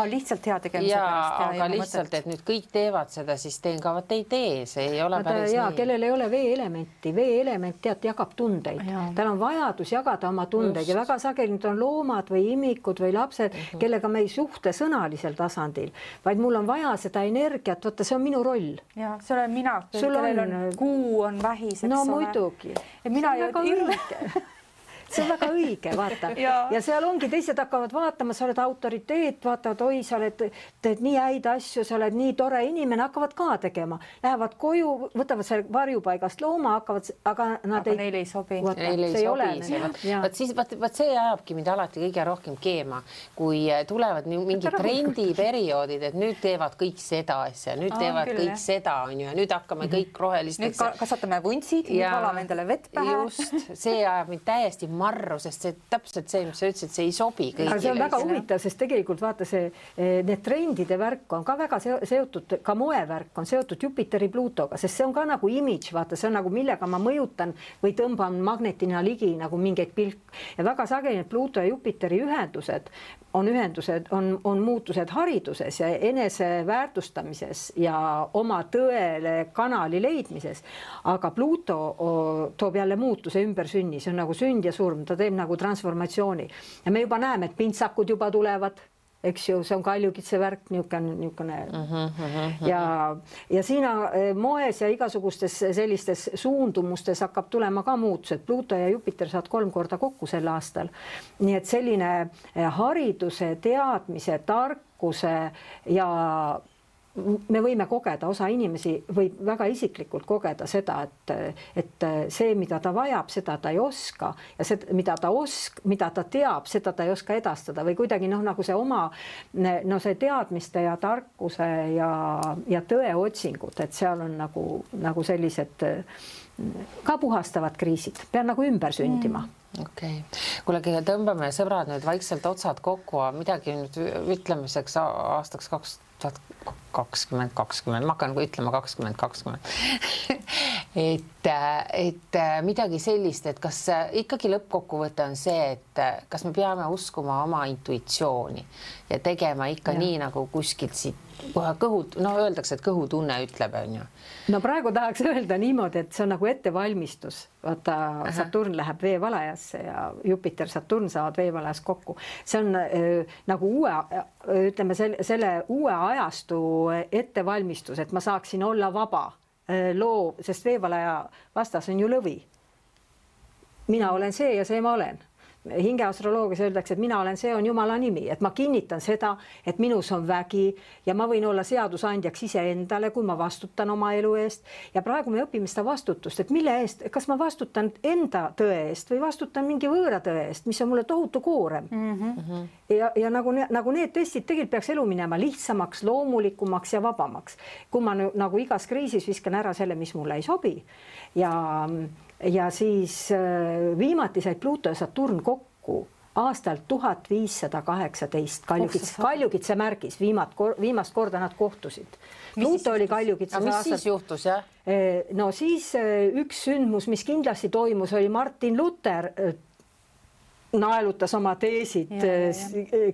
lihtsalt hea tegemise pärast. Aga lihtsalt, et nüüd kõik teevad seda, siis teen ka, vaat ei tee, see ei ole päris nii. Kellel ei ole veeelementi, veeelement jagab tundeid. Tal on vajadus jagada oma tundeid ja väga sageli on loomad või imikud või lapsed, kellega me ei suhte sõnalisel tasandil, vaid mul on vaja seda energiat, võtta, see on minu roll. Ja, see olen mina, kellel on kuu on vähis, eks ole. No muidugi. Ja mina ju see on väga õige, vaata. ja seal ongi, teised hakkavad vaatama, sa oled autoriteet, vaatavad, oi, sa teed nii häid asju, sa oled nii tore inimene, hakkavad ka tegema. Lähevad koju, võtavad selle varjupaigast looma, hakkavad, aga neile ei sobi. Neile ei sobi. Vaat see ajabki mind alati kõige rohkem keema, kui tulevad mingid trendiperioodid, et nüüd teevad kõik seda asja, nüüd teevad kõik seda, on ju, ja nüüd hakkame kõik rohelisteks. Nüüd kasvatame vuntsid, nüüd valame endale vett pähe. Just, see ajab mind täiesti marru, sest see täpselt see, mis sa ütlesid, see ei sobi kõigile. See on väga huvitav, sest tegelikult vaata need trendide värk on ka väga seotud, ka moevärk on seotud Jupiteri Pluutoga, sest see on ka nagu imidž, vaata, see on nagu millega ma mõjutan või tõmban magnetina ligi nagu mingeid pilk. Ja väga sageli Pluuto ja Jupiteri ühendused on muutused hariduses ja eneseväärtustamises ja oma tõele kanali leidmises. Aga Pluuto toob jälle muutuse ümbersünni, see on nagu sünd ja surm, ta teeb nagu transformatsiooni. Ja me juba näeme, et pintsakud juba tulevad, eks ju, see on kaljukitse värk, niisugune. Ja siin moes ja igasugustes sellistes suundumustes hakkab tulema ka muutused. Pluuto ja Jupiter saad 3 korda kokku sel aastal. Nii et selline hariduse, teadmise, tarkuse ja me võime kogeda, osa inimesi võib väga isiklikult kogeda seda, et see, mida ta vajab, seda ta ei oska ja see, mida ta teab, seda ta ei oska edastada või kuidagi nagu see oma see teadmiste ja tarkuse ja tõe otsingud, et seal on nagu sellised ka puhastavad kriisid, pean nagu ümber sündima. Okei. Kuule, tõmbame sõbrad nüüd vaikselt otsad kokku, midagi nüüd ütlemiseks aastaks 2020, ma hakkan ütlema 2020. et midagi sellist, et kas ikkagi lõppkokkuvõte on see, et kas me peame uskuma oma intuitsiooni ja tegema ikka nii nagu kuskilt siit kõhud, öeldakse, et kõhutunne ütleb, on ju. No praegu tahaks öelda niimoodi, et see on nagu ettevalmistus. Vaata, Saturn läheb veevalajasse ja Jupiter, Saturn saavad veevalajas kokku. See on nagu ütleme, selle uue ajastu ettevalmistus, et ma saaksin olla vaba loov, sest veevalaja vastas on ju lõvi. Mina olen see ja see ma olen. Hingeastroloogias öeldakse, et mina olen, see on Jumala nimi, et ma kinnitan seda, et minus on vägi ja ma võin olla seadusandjaks iseendale, kui ma vastutan oma elu eest. Ja praegu me õpime seda vastutust, et mille eest, kas ma vastutan enda tõe eest või vastutan mingi võõra tõe eest, mis on mulle tohutu koorem. Ja nagu need testid tegelikult peaks elu minema lihtsamaks, loomulikumaks ja vabamaks. Kui ma nagu igas kriisis viskan ära selle, mis mulle ei sobi ja siis viimati said Pluuto ja Saturn kokku aastal 1518 Kaljukitse märgis, viimast korda nad kohtusid. Pluuto oli Kaljukitses aastal. Mis siis juhtus, jah? No siis üks sündmus, mis kindlasti toimus, oli Martin Luther naelutas oma teesid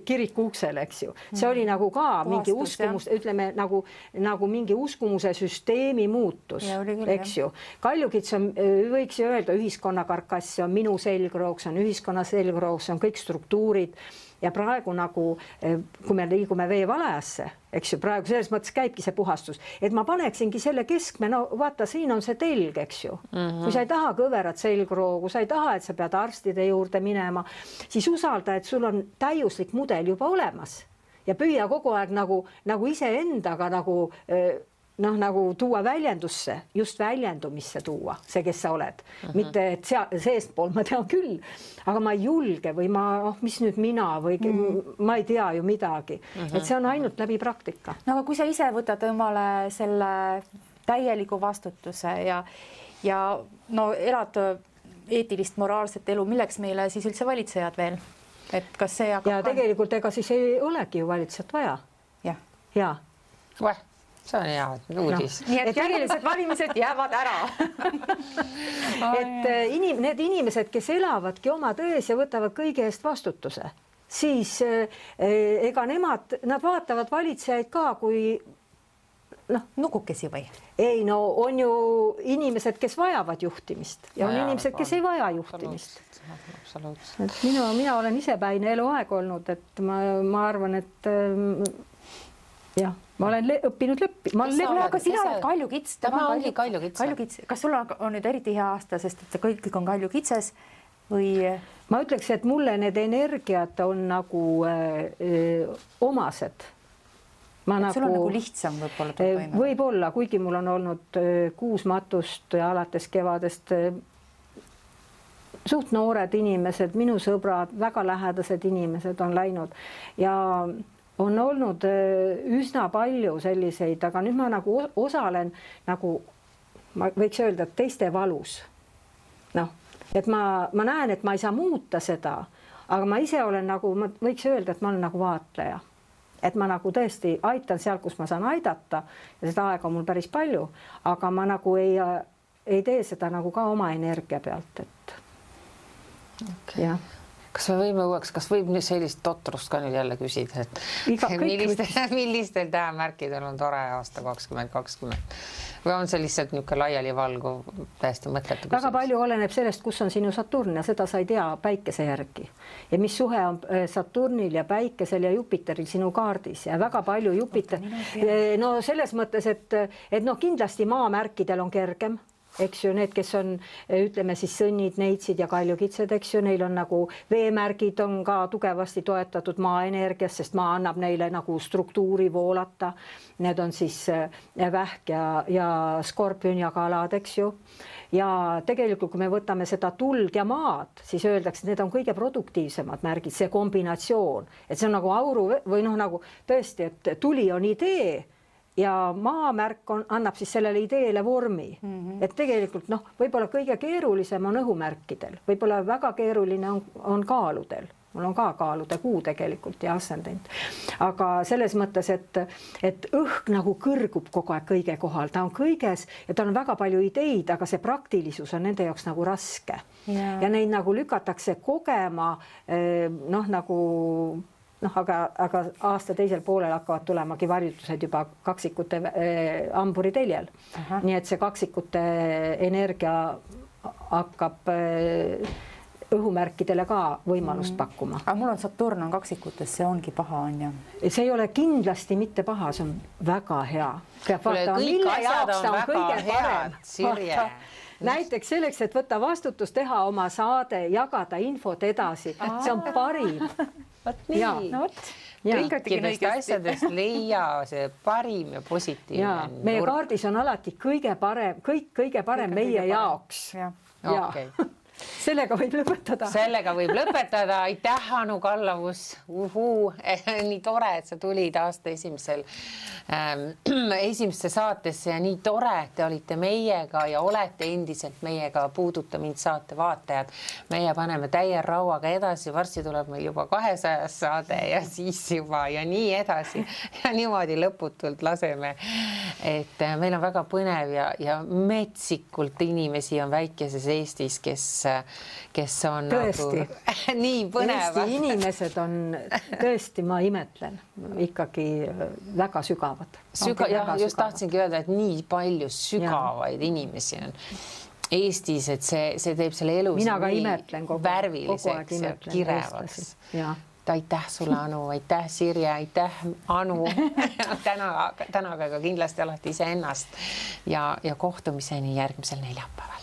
kiriku uksele, eks ju. See oli nagu ka mingi uskumus, ütleme nagu mingi uskumuse süsteemi muutus, eks ju. Kaljukits on, võiks ju öelda, ühiskonna karkass, on minu selgrooks, on ühiskonna selgrooks, on kõik struktuurid ja praegu nagu, kui me liigume veevalajasse, eks ju, praegu selles mõttes käibki see puhastus, et ma paneksingi selle keskme, no vaata, siin on see telg, eks ju. Kui sa ei taha kõverat selgroogu, sa ei taha, et sa pead arstide juurde minema, siis usalda, et sul on täiuslik mudel juba olemas ja püüa kogu aeg nagu iseendaga nagu tuua väljendusse, just väljendumisse tuua, see, kes sa oled. Mitte, et seestpool ma tean küll, aga ma ei julge või mis nüüd mina või ma ei tea ju midagi. Et see on ainult läbi praktika. No aga kui sa ise võtad omale selle täieliku vastutuse ja elad eetilist, moraalset elu, milleks meile siis üldse valitsejad veel? Et kas see ja tegelikult ega siis ei olegi ju valitsejat vaja. Ja. See on hea uudis. Nii et järgmised valimised jäävad ära. Et need inimesed, kes elavadki oma tões ja võtavad kõige eest vastutuse, siis ega nad vaatavad valitsejaid ka kui nukukesi või? Ei, no on ju inimesed, kes vajavad juhtimist ja on inimesed, kes ei vaja juhtimist. Absoluutselt. Mina olen isepäine eluaeg olnud, et ma arvan, et jah, ma olen õppinud aga sina oled Kaljukits. Tema ongi Kaljukits. Kas sul on nüüd eriti hea aasta, sest et kõik on Kaljukitses või? ma ütleks, et mulle need energiat on nagu omased. Sul on nagu lihtsam võib-olla toime. Võib-olla, kuigi mul on olnud 6 matust ja alates kevadest suht noored inimesed, minu sõbrad, väga lähedased inimesed on läinud ja on olnud üsna palju selliseid, aga nüüd ma nagu osalen nagu, ma võiks öelda, et teiste valus. Noh, et ma näen, et ma ei saa muuta seda, aga ma ise olen nagu, ma võiks öelda, et ma olen nagu vaatleja. Et ma nagu tõesti aitan seal, kus ma saan aidata ja seda aega on mul päris palju, aga ma nagu ei tee seda nagu ka oma energia pealt, et okay. Ja. Kas me võime uueks, kas võib sellist totrust ka nüüd jälle küsida, et millistel tähemärkidel on tore aasta 2020 või on see lihtsalt niisugune laiali valguv täiesti mõttetu küsimus? Väga palju oleneb sellest, kus on sinu Saturn ja seda sa ei tea päikese järgi ja mis suhe on Saturnil ja päikesel ja Jupiteril sinu kaardis ja väga palju Jupiter, no selles mõttes, et no kindlasti maamärkidel on kergem. Eks ju, need, kes on, ütleme siis sõnnid, neitsid ja kaljukitsed, eks ju, neil on nagu veemärgid on ka tugevasti toetatud maaenergias, sest maa annab neile nagu struktuuri voolata. Need on siis vähk ja skorpion ja kalad, eks ju. Ja tegelikult, kui me võtame seda tuld ja maad, siis öeldakse, et need on kõige produktiivsemad märgid, see kombinatsioon, et see on nagu auru või noh, nagu tõesti, et tuli on idee ja maamärk annab siis sellele ideele vormi. Et tegelikult noh, võib-olla kõige keerulisem on õhumärkidel, võib-olla väga keeruline on kaaludel. Mul on ka kaalude kuu tegelikult ja ascendent. Aga selles mõttes, et õhk nagu kõrgub kogu aeg kõige kohal, ta on kõiges ja tal on väga palju ideid, aga see praktilisus on nende jaoks nagu raske. Ja neid nagu lükatakse kogema noh, nagu aga aasta teisel poolel hakkavad tulemagi varjutused juba kaksikute hamburi teljel. Nii et see kaksikute energia hakkab õhumärkidele ka võimalust pakkuma. Aga mul on Saturn on kaksikutes, see ongi paha, on ju? See ei ole kindlasti mitte paha, see on väga hea. Kõik asjad on väga head, Sirje. Näiteks selleks, et võtta vastutus, teha oma saade, jagada infot edasi. See on parim. Nii. Kõikidest asjadest leia see parim ja positiivne. Meie kaardis on alati kõige parem meie jaoks. Okay. Sellega võib lõpetada. Aitäh, Anu Kallavus. Nii tore, et sa tulid aasta esimesse saatesse ja nii tore, et te olite meiega ja olete endiselt meiega Puuduta mind saate vaatajad. Meie paneme täie rauaga edasi, varsti tuleb meil juba 200 saade ja siis juba ja nii edasi ja niimoodi lõputult laseme. Et meil on väga põnev ja metsikult inimesi on väikeses Eestis, kes on tõesti nagu nii põnevad. Eesti inimesed on tõesti, ma imetlen, ikkagi väga sügavad. Just tahtsingi öelda, et nii palju sügavaid inimesi on Eestis, et see teeb selle elu värviliseks ja kirevaks. Aitäh sulle, Anu, aitäh Sirje, aitäh Anu. Tänaga ka kindlasti alati iseennast ja kohtumiseni järgmisel neljapäeval.